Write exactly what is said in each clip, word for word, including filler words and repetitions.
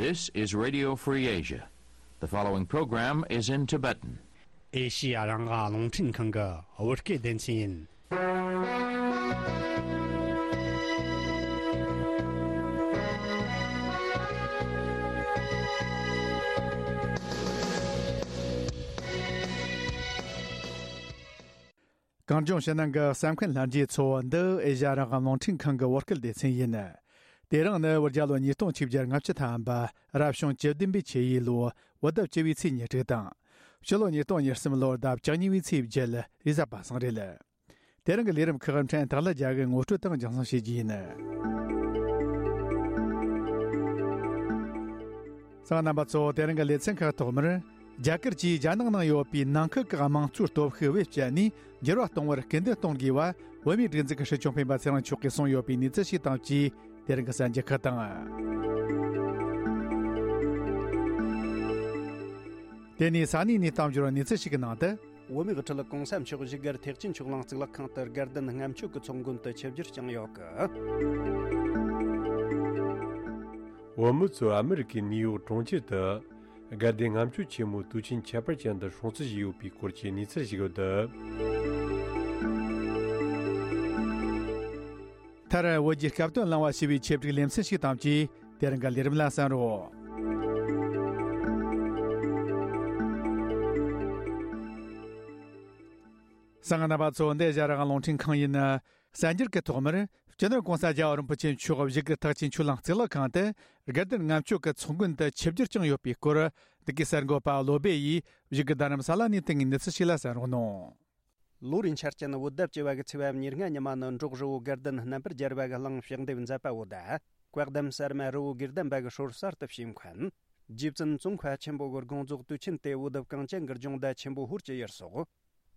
This is Radio Free Asia. The following program is in Tibetan. ཨེ་ཤི་ཡ་རང་དབང་རླུང་འཕྲིན་ཁང་གི་བོད་སྐད་སྡེ་ཚན་ཡིན། གངས་ལྗོངས་ཕྱི་ནང་གི་གསན་མཁན་ལྷན་རྒྱས་ཚོ། འདི་ཨེ་ཤ་ཡ་རང་དབང་རླུང་འཕྲིན་ཁང་གི་བོད་སྐད་སྡེ་ཚན་ཡིན། དེ་རིང་ནི་བོད་རྒྱལ་ལོ་ཉིས་སྟོང་ཆིག་བརྒྱ་ལྔ་བཅུ་ཐམ་པ། རབ་བྱུང་བཅུ་བདུན་པའི་ཆུ་ཡོས་ལོ། བོད་ཟླ་བཅུ་བའི་ཚེས་ཉེར་དྲུག་དང་། སྤྱི་ལོ་ཉིས་སྟོང་ཉེར་གསུམ་ལོར་ཟླ་བཅུ་གཉིས་པའི་ཚེས་བརྒྱད། རེས་གཟའ་པ་སངས་རེད། དེ་རིང་གི་ལས་རིམ་ཁག་ཕྲན་སྟག་ལྷ་རྒྱལ་གྱིས་ངོ་སྤྲོད་དང་རྒྱང་སྲིང་བྱེད་རྒྱུ་ཡིན། གསན་མཁན་རྣམ་པ་ཚོ། དེ་རིང་གི་ལེ་ཚན་ཁག་ཐོག་མར། རྒྱ་གར་གྱིས་རྒྱ་ནག་ནང་ཡོད་པའི་ནང་ཁུལ་གྱི་དམངས་གཙོའི་སྟོབས་ཤུགས་བེད་སྤྱད་ནས་འགྱུར་བ་གཏོང་བར་སྐུལ་འདེད་གཏོང་དགོས་པ། བོད་མིའི་སྒྲིག་འཛུགས་ཀྱི་སྲིད་སྐྱོང་སྤེན་པ་ཚེ་རིང་མཆོག་གིས་གསུངས་ཡོད་པའི་གནས་ཚུལ་ཞིག་དང་བཅས། དེ་རིང་གི་གསར་འགྱུར་ཁག་དང་། དེ་ནས་ས་གནས་ནས་གཏམ་བརྗོད་གནས་ཚུལ་ཞིག་གི་ནང་དུ། བོད་མིའི་དབུ་ཁྲིད་གོང་ས་མཆོག་བཞུགས་སྒར་ཐེག་ཆེན་ཆོས་གླིང་གཙུག་ལག་ཁང་དུ་དགའ་ལྡན་ལྔ་མཆོད་ཀྱི་ཚོགས་མགོན་དུ་ཆིབས་བསྒྱུར་བསྐྱངས་ཡོད་སྐད། བོད་མི་ཚོས་ཨ་མི་རི་ཀའི་ནིའུ་ཡོག་གྲོང་ཁྱེར་དུ་དགའ་ལྡན་ལྔ་མཆོད་ཆེན་མོའི་དུས་ཆེན་ཁྱད་པར་ཅན་དུ་སྲུང་བརྩི་བྱས་ཡོད་པའི་སྐོར་གྱི་གནས་ཚུལ་ཞིག་ཡོད་འདུག་མཐར་བོད་ཀྱི་སྐབས་དོན་བླངས་པ་ཞེས་པའི་ཆེད་བསྒྲིགས་ལེ་ཚན་ཞིག་དང་བཅས། དེ་རིང་གི་ལས་རིམ་ལ་གསན་རོགས། གསན་མཁན་རྣམ་པ་ཚོ། འདི་ཨེ་ཤ་ཡ་རང་དབང་རླུང་འཕྲིན་ཁང་ཡིན། གསར་འགྱུར་གྱི་ཐོག་མར། སྤྱི་ནོར་༸གོང་ས་༸རྒྱལ་བ་རིན་པོ་ཆེ་མཆོག་བཞུགས་སྒར་ཐེག་ཆེན་ཆོས་གླིང་གཙུག་ལག་ཁང་དུ་དགའ་ལྡན་ལྔ་མཆོད་ཀྱི་ཚོགས་མགོན་དུ་ཆིབས་བསྒྱུར་བསྐྱངས་ཡོད་པའི་སྐོར། འདི་གའི་གསར་འགོད་པ་བློ་སྦེ་ཡིས་བཞུགས་སྒར་རྡ་རམ་ས་ལ་ནས་བཏང་བའི་གནས་ཚུལ་ཞིག་ལ་གསན་རོགས་གནང་། ལོ་རེའི་འཆར་ཅན་བོད་ཟླ་བཅུ་བ་གི་ཚེས་པ་ཉེར་ལྔ་ཉི་མ་ནི་འབྲོག་རི་བོ་དགའ་ལྡན་རྣམ་པར་རྒྱལ་བ་གི་གླིང་ཕྱག་འདེབས་མཛད་པ་བོ་དང་། བཀའ་གདམས་གསར་མ་རི་བོ་དགེ་ལྡན་པ་གི་སྲོལ་གསར་དུ་ཕྱིས་མཁན། རྗེ་བཙུན་ཙོང་ཁ་ཆེན་པོ་གི་དགོངས་རྫོགས་དུས་ཆེན་དེ་བོད་བདག་གངས་ཅན་གྱི་ལྗོངས་ཟླ་ཆེན་པོ་ཧོར་གྱི་ཡུལ་སོགས།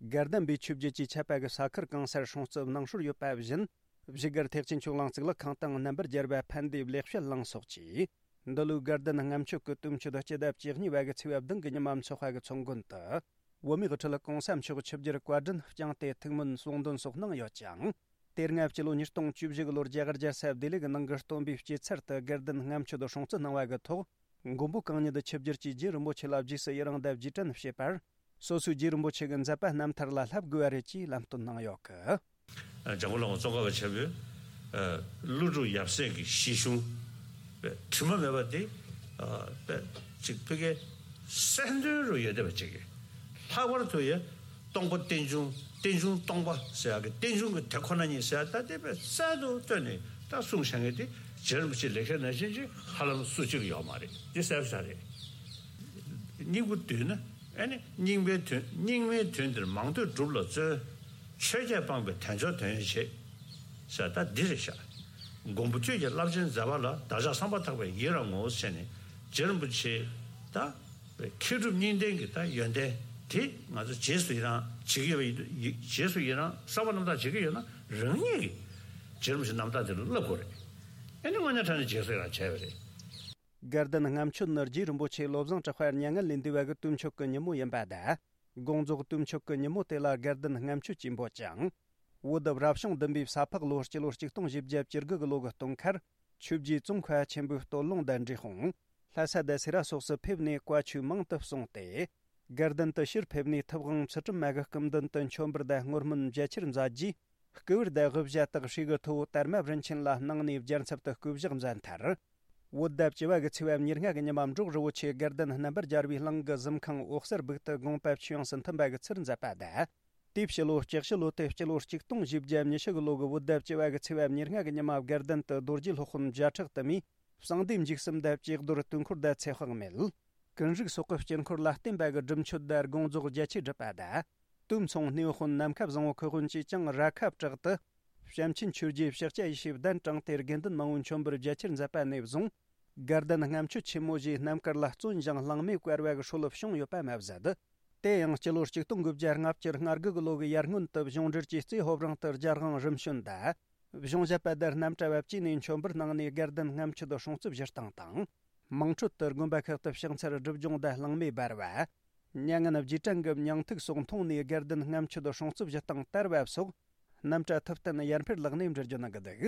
དགའ་ལྡན་པའི་ཆོས་བརྒྱུད་ཀྱི་ཆད་པ་གི་ས་ཁུལ་གང་སར་སྲུང་བརྩི་གནང་སྲོལ་ཡོད་པ་བཞིན། བཞུགས་སྒར་ཐེག་ཆེན་ཆོས་གླིང་གཙུག་ལག་ཁང་དང་རྣམ་པར་རྒྱལ་བ་ཕན་བདེའི་ལེགས་བཤད་གླིང་སོགས་ཀྱིས། འདི་ལོའི་དགའ་ལྡན་ལྔ་མཆོད་ཀྱི་དུས་མཆོད་སྤྱི་ཟླ་བཅུ་གཉིས་པ་གི་ཚེས་པ་བདུན་གི་ཉི་མ་འཚོགས་པ་གི་ཚོགས་མགོན་དུ། བོད་མིའི་དབུ་ཁྲིད་༸གོང་ས་མཆོག་ཆིབས་བསྒྱུར་བཀའ་དྲིན་བསྐྱངས་ཏེ་ཐུགས་སྨོན་གསུང་འདོན་སོགས་གནང་ཡོད་ཅིང་། དེ་སྔ་སྤྱི་ལོ་ཉིས་སྟོང་བཅུ་བཞི་གི་ལོར་རྒྱ་གར་རྒྱལ་ས་ལྡི་ལི་གི་ནང་གི་སྟོན་པའི་སྐྱེད་ཚལ་དུ་དགའ་ལྡན་ལྔ་མཆོད་སྲུང་བརྩི་གནང་བ་གི་ཐོག་མགོན་པོ་གང་ཉིད་ཆིབས་བསྒྱུར་གྱིས་རྗེ་རིན་པོ་ཆེ་ལ་རྗེས་སུ་ཡི་རང་དང་རྗེས་དྲན་བྱེད་པར། སོ་སོའི་རྗེ་རིན་པོ་ཆེ་གི་མཛད་པ་རྣམ་ཐར་ལ་བསླབ་དགོས་པ་རེད་ཅེས་ལམ་སྟོན་གནང་ཡོད་སྐད། འཇམ་མགོན་བླ་མ་ཙོང་ཁ་པ་ཆེན་པོས་ཀླུ་སྒྲུབ་ཡབ་སྲས་ཀྱི་གཞི་གཞུང་དྲི་མ་མེད་པ་དེ་ཅིག་ཕ་གིའི་གསལ་འདོན་རུ་ཡོད་བསྡད་པ་ཅིག་གིས། ལྷག་པར་དུ་ཡང་སྟོང་པ་རྟེན་འབྱུང་། རྟེན་འབྱུང་སྟོང་པ་ཟེར་ཡག་གི་རྟེན་འབྱུང་གི་དེ་ཁོ་ན་ཉིད་ཟེར་ཡག་ད་དེ་དཔེ་གསལ་དུ་བཏོན་ནས་ད་གསུངས་བཞག་མཁན་དེ་རྗེ་རིན་པོ་ཆེ་ལེགས་བཤད་ནང་བཞིན་ཅིག་ཧ་ལམ་སུ་གཅིག་ཡོད་མ་རེད། འདི་གསལ་པོ་ཆགས་རེད། སྙིང་པོ་བསྡུས་ན། ཨ་ནི་སྙིང་པའི་དོན། སྙིགས་མའི་དོན་འདིར་མང་ཐོས་སྒྲུབ་ལ་བརྩོན། ཆོས་བརྒྱད་སྤངས་པའི་དལ་འབྱོར་དོན་ཡོད་བྱེད། ཟེར་ད་འདི་རེད་ཤག་མགོན་པོ་ཁྱོད་ཀྱི་རླབས་ཆེན་མཛད་པ་ལ། བདག་ཅག་བསམ་པ་ཐག་པས་ཡི་རང་ངོ་། ཟེར་ནས་རྗེ་རིན་པོ་ཆེ་ད་མཁས་གྲུབ་གཉིས་ལྡན་གྱི་ད་ཡོན་ཏན་དེ་ང་ཚོ་རྗེས་སུ་ཡི་རང་བྱེད་ཀྱི་ཡོད་པ་ཡིན་དུས། ཡི་རྗེས་སུ་ཡི་རང་བསམ་པ་རྣམ་དག་བྱེད་ཀྱི་ཡོད་ན། རང་ཉིད་ཀྱིས་རྗེ་རིན་པོ་ཆེ་རྣམ་དག་དེ་ལ་བསླབ་དགོས་རེད། ཨ་ནི་དངོས་གནས་དྲང་གནས་རྗེས་སུ་ཡི་རང་བྱས་པ་རེད། དགའ་ལྡན་ལྔ་མཆོད་ནི་རྗེ་རིན་པོ་ཆེ་བློ་བཟང་གྲགས་པ་མྱ་ངན་ལས་འདས་པ་གི་དུས་མཆོད་ཀྱི་ཉིན་མོ་ཡིན་པ་དང་། དགོངས་རྫོགས་དུས་མཆོད་ཀྱི་ཉིན་མོ་དེ་ལ་དགའ་ལྡན་ལྔ་མཆོད་ཅེས་འབོད་ཅིང་། བོད་རབ་བྱུང་བདུན་པའི་ས་ཕག་ལོ་སྤྱི་ལོ་གཅིག་སྟོང་བཞི་བརྒྱ་བཅུ་དགུ་གི་ལོ་གི་སྟོན་ཁར། ཆོས་རྗེ་ཙོང་ཁ་ཆེན་པོའི་སྟོད་ལུང་དང་འབྲས་སྤུངས། ལྷ་ས་དང་སེ་ར་སོགས་སུ་ཕེབས་ནས་བཀའ་ཆོས་མང་དུ་གསུངས་ཏེ། དགའ་ལྡན་དུ་ཕྱིར་ཕེབས་ནས་ཐུབ་དབང་ཚུལ་ཁྲིམས་མ་གི་སྐུ་མདུན་དུ་མཆོད་འབུལ་དང་བསྔོ་སྨོན་རྒྱ་ཆེར་མཛད་རྗེས། སྐུ་པར་དང་དབུ་ཞྭ་དག་ཧྲིལ་གི་ཐོ་བོ་དར་མ་རིན་ཆེན་ལ་གནང་ནས་རྒྱལ་ཚབ་ཏུ་སྐུ་བཞག་མཛད་མཐར། བོད་ཟླ་བཅུ་བ་གི་ཚེས་པ་ཉེར་ལྔ་གི་ཉི་མ་འབྲོག་རི་བོ་ཆེ་དགའ་ལྡན་རྣམ་པར་རྒྱལ་བའི་གླིང་གི་གཟིམ་ཁང་འོད་གསལ་སྦུག་ཏུ་དགོངས་པ་ཆོས་དབྱིངས་སུ་མཐུན་པ་གི་ཚུལ་མཛད་པ་དང་། དེའི་ཕྱི་ལོ་ལྕགས་ཕྱི་ལོ་སྟེ་སྤྱི་ལོ་གཅིག་སྟོང་བཞི་བརྒྱ་ཉི་ཤུ་གི་ལོ་གི་བོད་ཟླ་བཅུ་བ་གི་ཚེས་པ་ཉེར་ལྔ་གི་ཉི་མ་དགའ་ལྡན་དུ་རྡོ་རྗེ་སློབ་དཔོན་བརྒྱ་ཕྲག་དུ་མས། གསང་བདེ་འཇིགས་གསུམ་དང་བཅས་རྡོར་དུས་འཁོར་དང་ཚེ་དཔག་མེད། ཀུན་རིག་སོགས་ཀྱི་དཀྱིལ་འཁོར་ལ་བརྟེན་པ་གི་སྒྲུབ་མཆོད་དང་དགོངས་རྫོགས་རྒྱ་ཆེར་བསྒྲུབས་པ་དང་། དུས་མཚུངས་སྣེའུ་དཔོན་ནམ་མཁའ་བཟང་བོ་ཁུ་དབོན་གྱིས་ཀྱང་ར་ཁ་བྲག་ཏུ། བྱམས་ཆེན་ཆོས་རྗེའི་ཕྱག་རྒྱ་ཡེ་ཤེས་གདན་དྲངས་ཏེ་དགེ་འདུན་མང་བོའི་མཆོད་འབུལ་རྒྱ་ཆེར་མཛད་པ་ནས་བཟུང་། དགའ་ལྡན་ལྔ་མཆོད་ཆེན་མོ་ཞེས་རྣམ་དཀར་ལ་བརྩོན་ཞིང་གླེང་མོལ་བཀལ་བ་གི་སྲོལ་བྱུང་ཡོད་པ་མ་ཟད། དེ་ཡང་སྤྱི་ལོ་གཅིག་སྟོང་དགུ་བརྒྱ་ལྔ་བཅུ་ང་དགུ་གི་ལོ་གི་ཡར་སྔོན་དུ་གཞུང་འབྲེལ་གྱི་རྩེ་ཧོབ་རང་དུ་རྒྱལ་དབང་རིམ་བྱོན་དང་། གཞུང་ཞབས་པ་དང་རྣམ་གྲྭ་བ་བཅས་ནས་མཆོད་འབུལ་གནང་ནས་དགའ་ལྡན་ལྔ་མཆོད་སྲུང་བརྩི་ཞུ་སྟངས་དང་། དམངས་ཁྲོད་དུ་དགོན་པ་ཁག་ཏུ་ཕྱག་འཚལ་སྒྲུབ་སྦྱོང་དང་གླེང་མོལ་འབར་བ། མྱ་ངན་རྗེས་དྲན་གྱི་མྱིང་ཐུག་སོགས་མཐོང་ནས་དགའ་ལྡན་ལྔ་མཆོད་སྲུང་བརྩི་ཞུ་སྟངས་དར་བ་སོགས། རྣམ་གྲྭ་ཐུབ་བསྟན་ཡར་འཕེལ་ལགས་ནས་འགྲེལ་བརྗོད་གནང་གི་འདུག་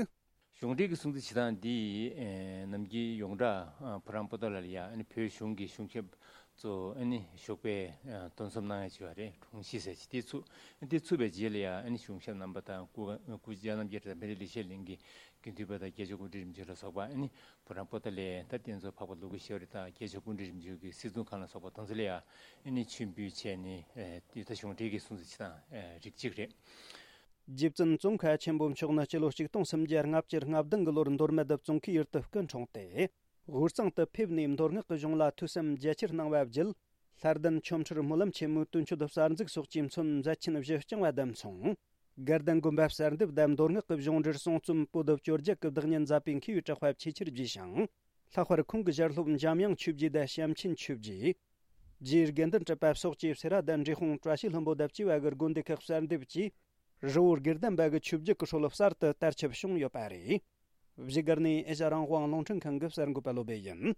གཞུང་འབྲེལ་གྱི་སྲུང་བརྩི་བྱེད་སྟངས་འདི་ཨེ་ནམ་རྒྱུན་ཡོངས་གྲགས་ཨ་བུ་རམ་པོ་ཏ་ལ་ཡ་ཨ་ནི་བོད་གཞུང་གི་གཞུང་ཞབས་ཚོ་ཨ་ནི་ཞོགས་པའི་ཨ་འདུ་འཛོམས་གནང་ཡ་བྱས་པ་རེད། དྲུང་ཆེ་ཟེར་གྱི་དེ་ཚུགས། དེ་ཚུགས་པའི་རྗེས་ལ་ཡ་ཨ་ནི་གཞུང་ཞབས་རྣམ་པ་དང་སྐུ་སྐུ་སྤྱི་རྣམ་རྒྱལ་དང་མི་རིགས་ལེགས་བཤད་གླིང་གི་དགེ་འདུན་པ་དང་རྒྱལ་སྤྱིའི་སྐུ་མགྲོན་རིམ་བྱོན་ལ་སོགས་པ་ཨ་ནི་བུ་རམ་པོ་ཏ་ལའི་ད་རྟེན་གཙོ་འཕགས་པ་ཀླུ་སྒྲུབ་ཤེས་རབ་དང་རྒྱལ་སྤྱིའི་སྐུ་མགྲོན་རིམ་བྱོན་གྱི་སྲིད་སྐྱོང་ཁང་ལ་སོགས་པ་དེ་ཚོ་ལ་ཡ་ཨ་ནི་མཆོད་འབུལ་བྱས་ནས་ཨེ་དེ་ད་གཞུང་འབྲེལ་གྱི་སྲུང་བརྩི་བྱེད་སྟངས་ཨེ་རིགས་གཅིག་རེད། རྗེ་བཙུན་ཙོང་ཁ་ཆེན་པོ་མཆོག་ནི་སྤྱི་ལོ་ཆིག་སྟོང་སུམ་བརྒྱ་ལྔ་བཅུ་ང་བདུན་གྱི་ལོར་མདོ་སྨད་ཙོང་ཁའི་ཡུལ་དུ་སྐུ་འཁྲུངས་ཏེ། དབུས་གཙང་དུ་ཕེབས་ནས་མདོ་སྔགས་ཀྱི་གཞུང་ལ་ཐོས་བསམ་རྒྱ་ཆེར་གནང་བ་བརྒྱུད། ལྷ་ལྡན་ཆོ་འཕྲུལ་སྨོན་ལམ་ཆེན་མོའི་དོན་སྤྱོད་གསར་འཛུགས་སོགས་ཀྱིས་མཚོན་མཛད་ཆེན་བཞི་བསྐྱངས་པ་དང་མཚུངས། དགའ་ལྡན་དགོན་པ་གསར་འདེབས་དང་མདོ་སྔགས་ཀྱི་གཞུང་འབྲེལ་གསུང་རྩོམ་པོ་ཏི་བཅོ་བརྒྱད་ཀྱི་བདག་ཉིད་མཛད་པའི་མཁས་པའི་གྲགས་པ་ཆེས་ཆེར་བརྗིད་ཞིང་། ལྷག་པར་ཁོང་གི་ཞལ་སློབ་འཇམ་དབྱངས་ཆོས་རྗེ་དང་བྱམས་ཆེན་ཆོས་རྗེ། རྗེ་དགེ་འདུན་གྲུབ་པ་སོགས་ཀྱིས་སེ་ར་དང་འབྲས་སྤུངས་བཀྲ་ཤིས་ལྷུན་པོ་དང་བཅས་པ་གི་དགོན་སྡེ་ཁག་གསར་འདེབས་ཀྱིས། རི་བོ་དགེ་ལྡན་པ་གི་ཆོས་བརྒྱུད་ཀྱི་སྲོལ་གསར་དུ་དར་ཁྱབ་བྱུང་ཡོད་པ་རེད། བཞུགས་སྒར་ནས་ཨེ་ཤ་རང་དབང་རླུང་འཕྲིན་ཁང་གི་གསར་འགོད་པ་བློ་བྷེ་ཡིན།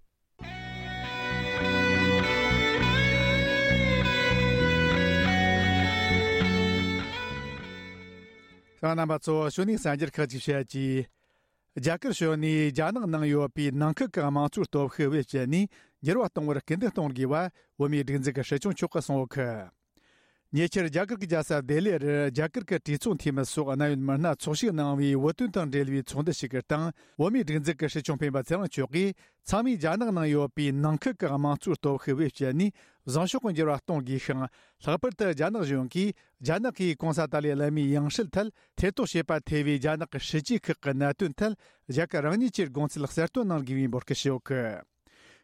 ཤང་རྣམ་པ་ཚོ་ཞུ་ནས་གསར་འགྱུར་ཁག་ཅིག་བཤད་ཀྱིས། རྒྱ་གར་ཕྱོགས་ནས་རྒྱ་ནག་ནང་ཡོད་པའི་ནང་ཁུལ་གྱི་དམངས་གཙོའི་སྟོབས་ཤུགས་བེད་སྤྱད་ནས་འགྱུར་བ་གཏོང་བར་སྐུལ་འདེད་གཏོང་དགོས་པ་བོད་མིའི་སྒྲིག་འཛུགས་ཀྱི་སྲིད་སྐྱོང་མཆོག་གིས་གསུངས་ཡོད་གི། ཉེ་ཆར་རྒྱ་གར་གྱི་རྒྱལ་ས་ལྡི་ལི་རུ་རྒྱ་གར་གྱི་གྲོས་ཚོགས་འཐུས་མི་སོགས་གནད་ཡོད་མི་སྣ་ཚོགས་ཞུགས་གནང་བའི་བོད་དོན་དང་འབྲེལ་བའི་ཚོགས་འདུ་ཞིག་གི་སྟེང་བོད་མིའི་སྒྲིག་འཛུགས་ཀྱི་སྲིད་སྐྱོང་སྤེན་པ་ཚེ་རིང་མཆོག་གིས། ཚང་མས་རྒྱ་ནག་ནང་ཡོད་པའི་ནང་ཁུལ་གྱི་དམངས་གཙོའི་སྟོབས་ཤུགས་བེད་སྤྱད་ནས་བཟང་ཕྱོགས་ཀྱི་འགྱུར་བ་གཏོང་དགོས་ཤིང་། ལྷག་པར་དུ་རྒྱ་ནག་གཞུང་གིས་རྒྱ་ནག་གིས་གོང་ས་ཏཱ་ལའི་བླ་མའི་ཡང་སྲིད་ཐད་ཐེ་གཏོགས་བྱེད་པར་ཐེ་བའི་རྒྱ་ནག་གི་སྲིད་ཇུས་ཁག་གི་གནད་དོན་ཐད་རྒྱ་གར་རང་ཉིད་ཀྱི་དགོངས་ཚུལ་གསལ་སྟོན་གནང་དགོས་པའི་འབོད་སྐུལ་ཞུས་ཡོད་གི།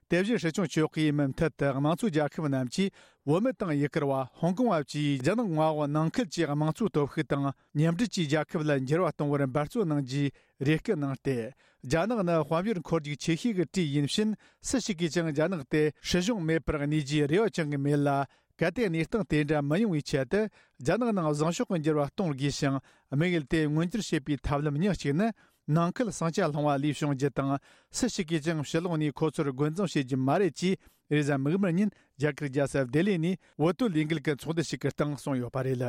དེ་བཞིན་སྲིད་སྐྱོང་མཆོག་གིས་མུ་མཐུད་དུ་དམངས་གཙོའི་རྒྱལ་ཁབ་རྣམས་ཀྱིས་བོད་མི་དང་ཡུ་གུར་བ། ཧོང་ཀོང་བ་བཅས་རྒྱ་ནག་མངའ་འོག་ནང་ཁུལ་གྱི་དམངས་གཙོའི་སྟོབས་ཤུགས་དང་མཉམ་འབྲེལ་གྱིས་རྒྱལ་ཁབ་ལ་འགྱུར་བ་གཏོང་བར་འབད་བརྩོན་གནང་རྒྱུའི་རེ་སྐུལ་གནང་སྟེ། རྒྱ་ནག་ནི་དཔལ་འབྱོར་འཁོར་རྒྱུག་ཆེ་ཤོས་ཀྱི་གྲས་ཡིན་ཕྱིན། སུ་ཞིག་གིས་ཀྱང་རྒྱ་ནག་དེ་སྲིད་གཞུང་མེད་པར་གནས་རྒྱུའི་རེ་བ་བཅང་གི་མེད་ལ། གལ་ཏེ་གནས་སྟངས་དེ་འདྲ་མི་ཡོང་བའི་ཆེད་དུ། རྒྱ་ནག་ནང་བཟང་ཕྱོགས་ཀྱི་འགྱུར་བ་གཏོང་དགོས་ཤིང་། དམིགས་ཡུལ་དེ་མངོན་འགྱུར་བྱེད་པའི་ཐབས་ལམ་ཉག་གཅིག་ནི། ནང་ཁུལ་ཟིང་ཆ་སློང་བ་ལས་བྱུང་རྒྱུ་དང་། སུ་ཞིག་གིས་ཀྱང་ཕྱི་ལོགས་ནས་ཁོ་ཚོར་རྒོལ་འཛིང་བྱེད་རྒྱུ་མ་རེད་ཅེས། རེས་གཟའ་མིག་དམར་ཉིན་རྒྱ་གར་རྒྱལ་ས་ལྡི་ལི་ནས་བོད་དོན་ལས་འགུལ་གྱི་ཚོགས་འདུ་ཞིག་གི་སྟེང་གསུངས་ཡོད་པ་རེད།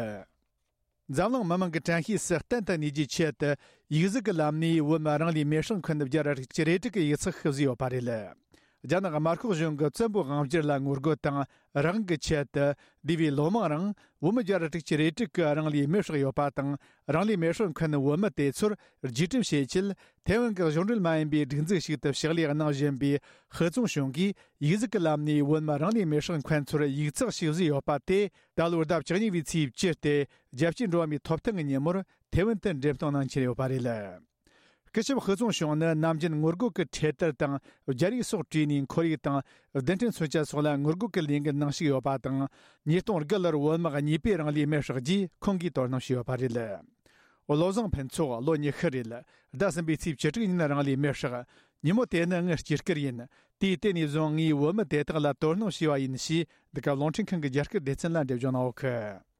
འཛམ་གླིང་མི་མང་གི་དྲན་ཤེས་སུ་གཏན་དུ་གནས་རྒྱུའི་ཆེད་དུ། ཡིག་གཟུགས་ཀྱི་ལམ་ནས་བོད་མི་རང་ལུས་མེར་སྲེག་འཁོན་རྒྱ་ར་དྲུག་ཅུ་རེ་དྲུག་གི་ཡིག་ཚགས་ཤིག་བཟོས་ཡོད་པ་རེད། རྒྱ་ནག་དམར་ཤོག་གཞུང་གི་བཙན་པོའི་དབང་སྒྱུར་ལ་ངོ་རྒོལ་དང་རང་དབང་གི་ཆེད་དུ། འདས་པའི་ལོ་མང་རིང་བོད་མི་བརྒྱ་ར་དྲུག་ཅུ་རེ་དྲུག་གིས་རང་ལུས་མེར་སྲེག་ཡོད་པ་དང་། རང་ལུས་མེར་སྲེག་འཁོན་བོད་མི་དེ་ཚོར་རྒྱུས་སྤྲོད་བྱེད་ཆེད། ཐའེ་ཝན་གྱི་གཞུང་འབྲེལ་མ་ཡིན་པའི་སྒྲིག་འཛུགས་ཤིག་ཏུ་ཕྱག་ལས་གནང་བཞིན་པའི་ཧུ་ཙུང་ཞུང་གིས། ཡིག་གཟུགས་ཀྱི་ལམ་ནས་བོད་མི་རང་ལུས་མེར་སྲེག་འཁོན་ཚོར་ཡིག་ཚགས་ཤིག་བཟོས་ཡོད་པ་དེ། ད་ལོའི་ཟླ་བཅུ་གཉིས་པའི་ཚེས་བཅུ་སྟེ། རྒྱལ་སྤྱིའི་འགྲོ་བ་མིའི་ཐོབ་ཐང་གི་ཉིན་མོར་ཐའེ་ཝན་དུ་འགྲེམས་སྟོན་གནང་འཆར་ཡོད་པ་རེད། སྐུ་ཞབས་ཧུ་ཙུང་ཞུང་ནི་ནམ་རྒྱུན་ངོ་རྒོལ་གྱི་འཕྲེད་དར་དང་རྒྱ་རིགས་སོགས་བྲིས་ནས་ཁོར་ཡུག་དང་རྡུལ་ཕྲན་མཚོན་ཆ་སོགས་ལ་ངོ་རྒོལ་གྱི་ལས་འགུལ་གནང་བཞིན་ཡོད་པ་དང་། ཉིས་སྟོང་དགུ་ལོར་བོད་དམག་གཉིས་པོས་རང་ལུས་མེར་བསྲེགས་རྗེས་ཁོང་གིས་དོ་སྣང་བྱས་ཡོད་པ་རེད། བློ་བཟང་ཕུན་ཚོགས་ལོ་ཉི་ཤུ་རེད། ཟླ་གསུམ་པའི་ཚེས་བཅུ་དྲུག་ཉིན་རང་ལུས་མེར་བསྲེགས། ཉིན་མོ་དེ་ནི་ངའི་སྐྱེས་སྐར་ཡིན། དེའི་དེ་ནས་བཟུང་ངས་བོད་མི་དེ་དག་ལ་དོ་སྣང་བྱས་པ་ཡིན་ཞེས། འདི་ག་རླུང་འཕྲིན་ཁང་གི་རྒྱ་སྐད་སྡེ་ཚན་ལ་འགྲེལ་བརྗོད་གནང་ཡོད་གི།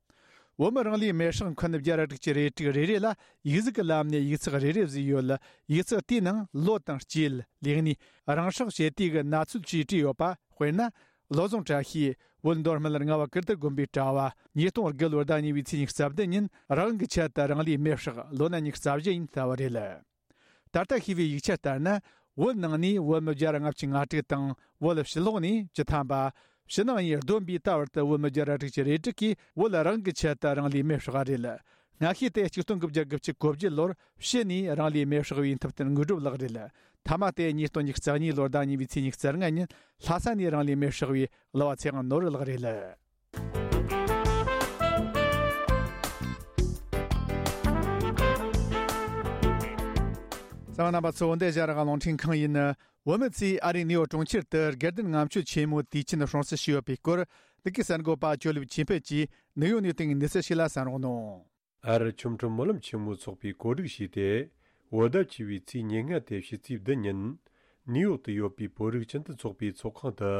བོད་མི་རང་ལུས་མེར་སྲེག་འཁོན་བརྒྱ་ར་དྲུག་ཅུ་རེ་དྲུག་རེ་རེ་ལ་ཡིག་གཟུགས་ཀྱི་ལམ་ནས་ཡིག་ཚགས་རེ་རེ་བཟོས་ཡོད། ཡིག་ཚགས་དེའི་ནང་ལོ་དང་སྐྱེས། ལས་གནས། རང་སྲེག་བྱེད་དུས་ཀྱི་གནས་ཚུལ་བཅས་བྲིས་ཡོད་པ། དཔེར་ན། བློ་བཟང་བཀྲ་ཤིས། བོད་མདོ་སྨད་རྔ་བ་ཀིརྟི་དགོན་པའི་གྲྭ་བ། ཉིས་སྟོང་དགུ་ལོའི་ཟླ་གཉིས་པའི་ཚེས་ཉི་ཤུ་རྩ་བདུན་ཉིན་རང་དབང་གི་ཆེད་དུ་རང་ལུས་མེར་བསྲེགས། ལོ་ན་ཉི་ཤུ་རྩ་བཞི་ཡིན་ལྟ་བུ་རེད། ད་ལྟ་ཤེས་པའི་ཡིག་ཆ་ལྟར་ན། བོད་ནང་ནས་བོད་མི་བརྒྱ་ར་ལྔ་བཅུ་ང་དྲུག་དང་། བོད་ཕྱི་ལོགས་ནས་བཅུ་ཐམ་པ། ཕྱི་ནང་གཉིས་བསྡོམས་པའི་ད་བར་དུ་བོད་མི་བརྒྱ་ར་དྲུག་ཅུ་རེ་དྲུག་གིས་བོད་རང་དབང་གི་ཆེད་དུ་རང་ལུས་མེར་བསྲེགས་པ་རེད། སྔ་ཤོས་དེ་ཆིག་སྟོང་དགུ་བརྒྱ་དགུ་བཅུ་གོ་བརྒྱད་ལོར་ཕྱི་ནས་རང་ལུས་མེར་བསྲེགས་པའི་མཐུ་བསྟན་དངོས་གྲུབ་ལགས་རེད། ཐ་མ་དེ་ཉིས་སྟོང་ཉི་ཤུ་རྩ་གཉིས་ལོར་ཟླ་གཉིས་པའི་ཚེས་ཉི་ཤུ་རྩ་ལྔ་ཉིན་ལྷ་ས་ནས་རང་ལུས་མེར་བསྲེགས་པའི་གླུ་བ་ཚེ་དབང་ནོར་བུ་ལགས་རེད། གསན་པ་རྣམ་པ་ཚོ། འདི་ཨེ་ཤ་ཡ་རང་དབང་རླུང་འཕྲིན་ཁང་ཡིན། བོད་མི་ཚོས་ཨ་རིའི་ནིའུ་ཡོག་གྲོང་ཁྱེར་དུ་དགེ་ལྡན་ལྔ་མཆོད་ཆེན་མོའི་དུས་ཆེན་སྲུང་བརྩི་ཞུས་ཡོད་པའི་སྐོར། འདི་གའི་གསར་འགོད་པ་ཇོ་ལེབ་ཆོས་འཕེལ་གྱིས་ནིའུ་ཡོག་ནས་བཏང་བའི་གནས་ཚུལ་ཞིག་ལ་གསན་རོགས་གནང་། ཨ་རི་ཆོ་འཕྲུལ་སྨོན་ལམ་ཆེན་མོའི་ཚོགས་པས་གོ་སྒྲིག་བྱས་ཏེ། བོད་ཟླ་བཅུ་པའི་ཚེས་ཉེར་ལྔ་སྟེ་ཕྱི་ཚེས་བདུན་ཉིན། ནིའུ་ཡོག་ཏུ་ཡོད་པའི་བོད་རིགས་སྤྱི་མཐུན་ཚོགས་པའི་ཚོགས་ཁང་དུ།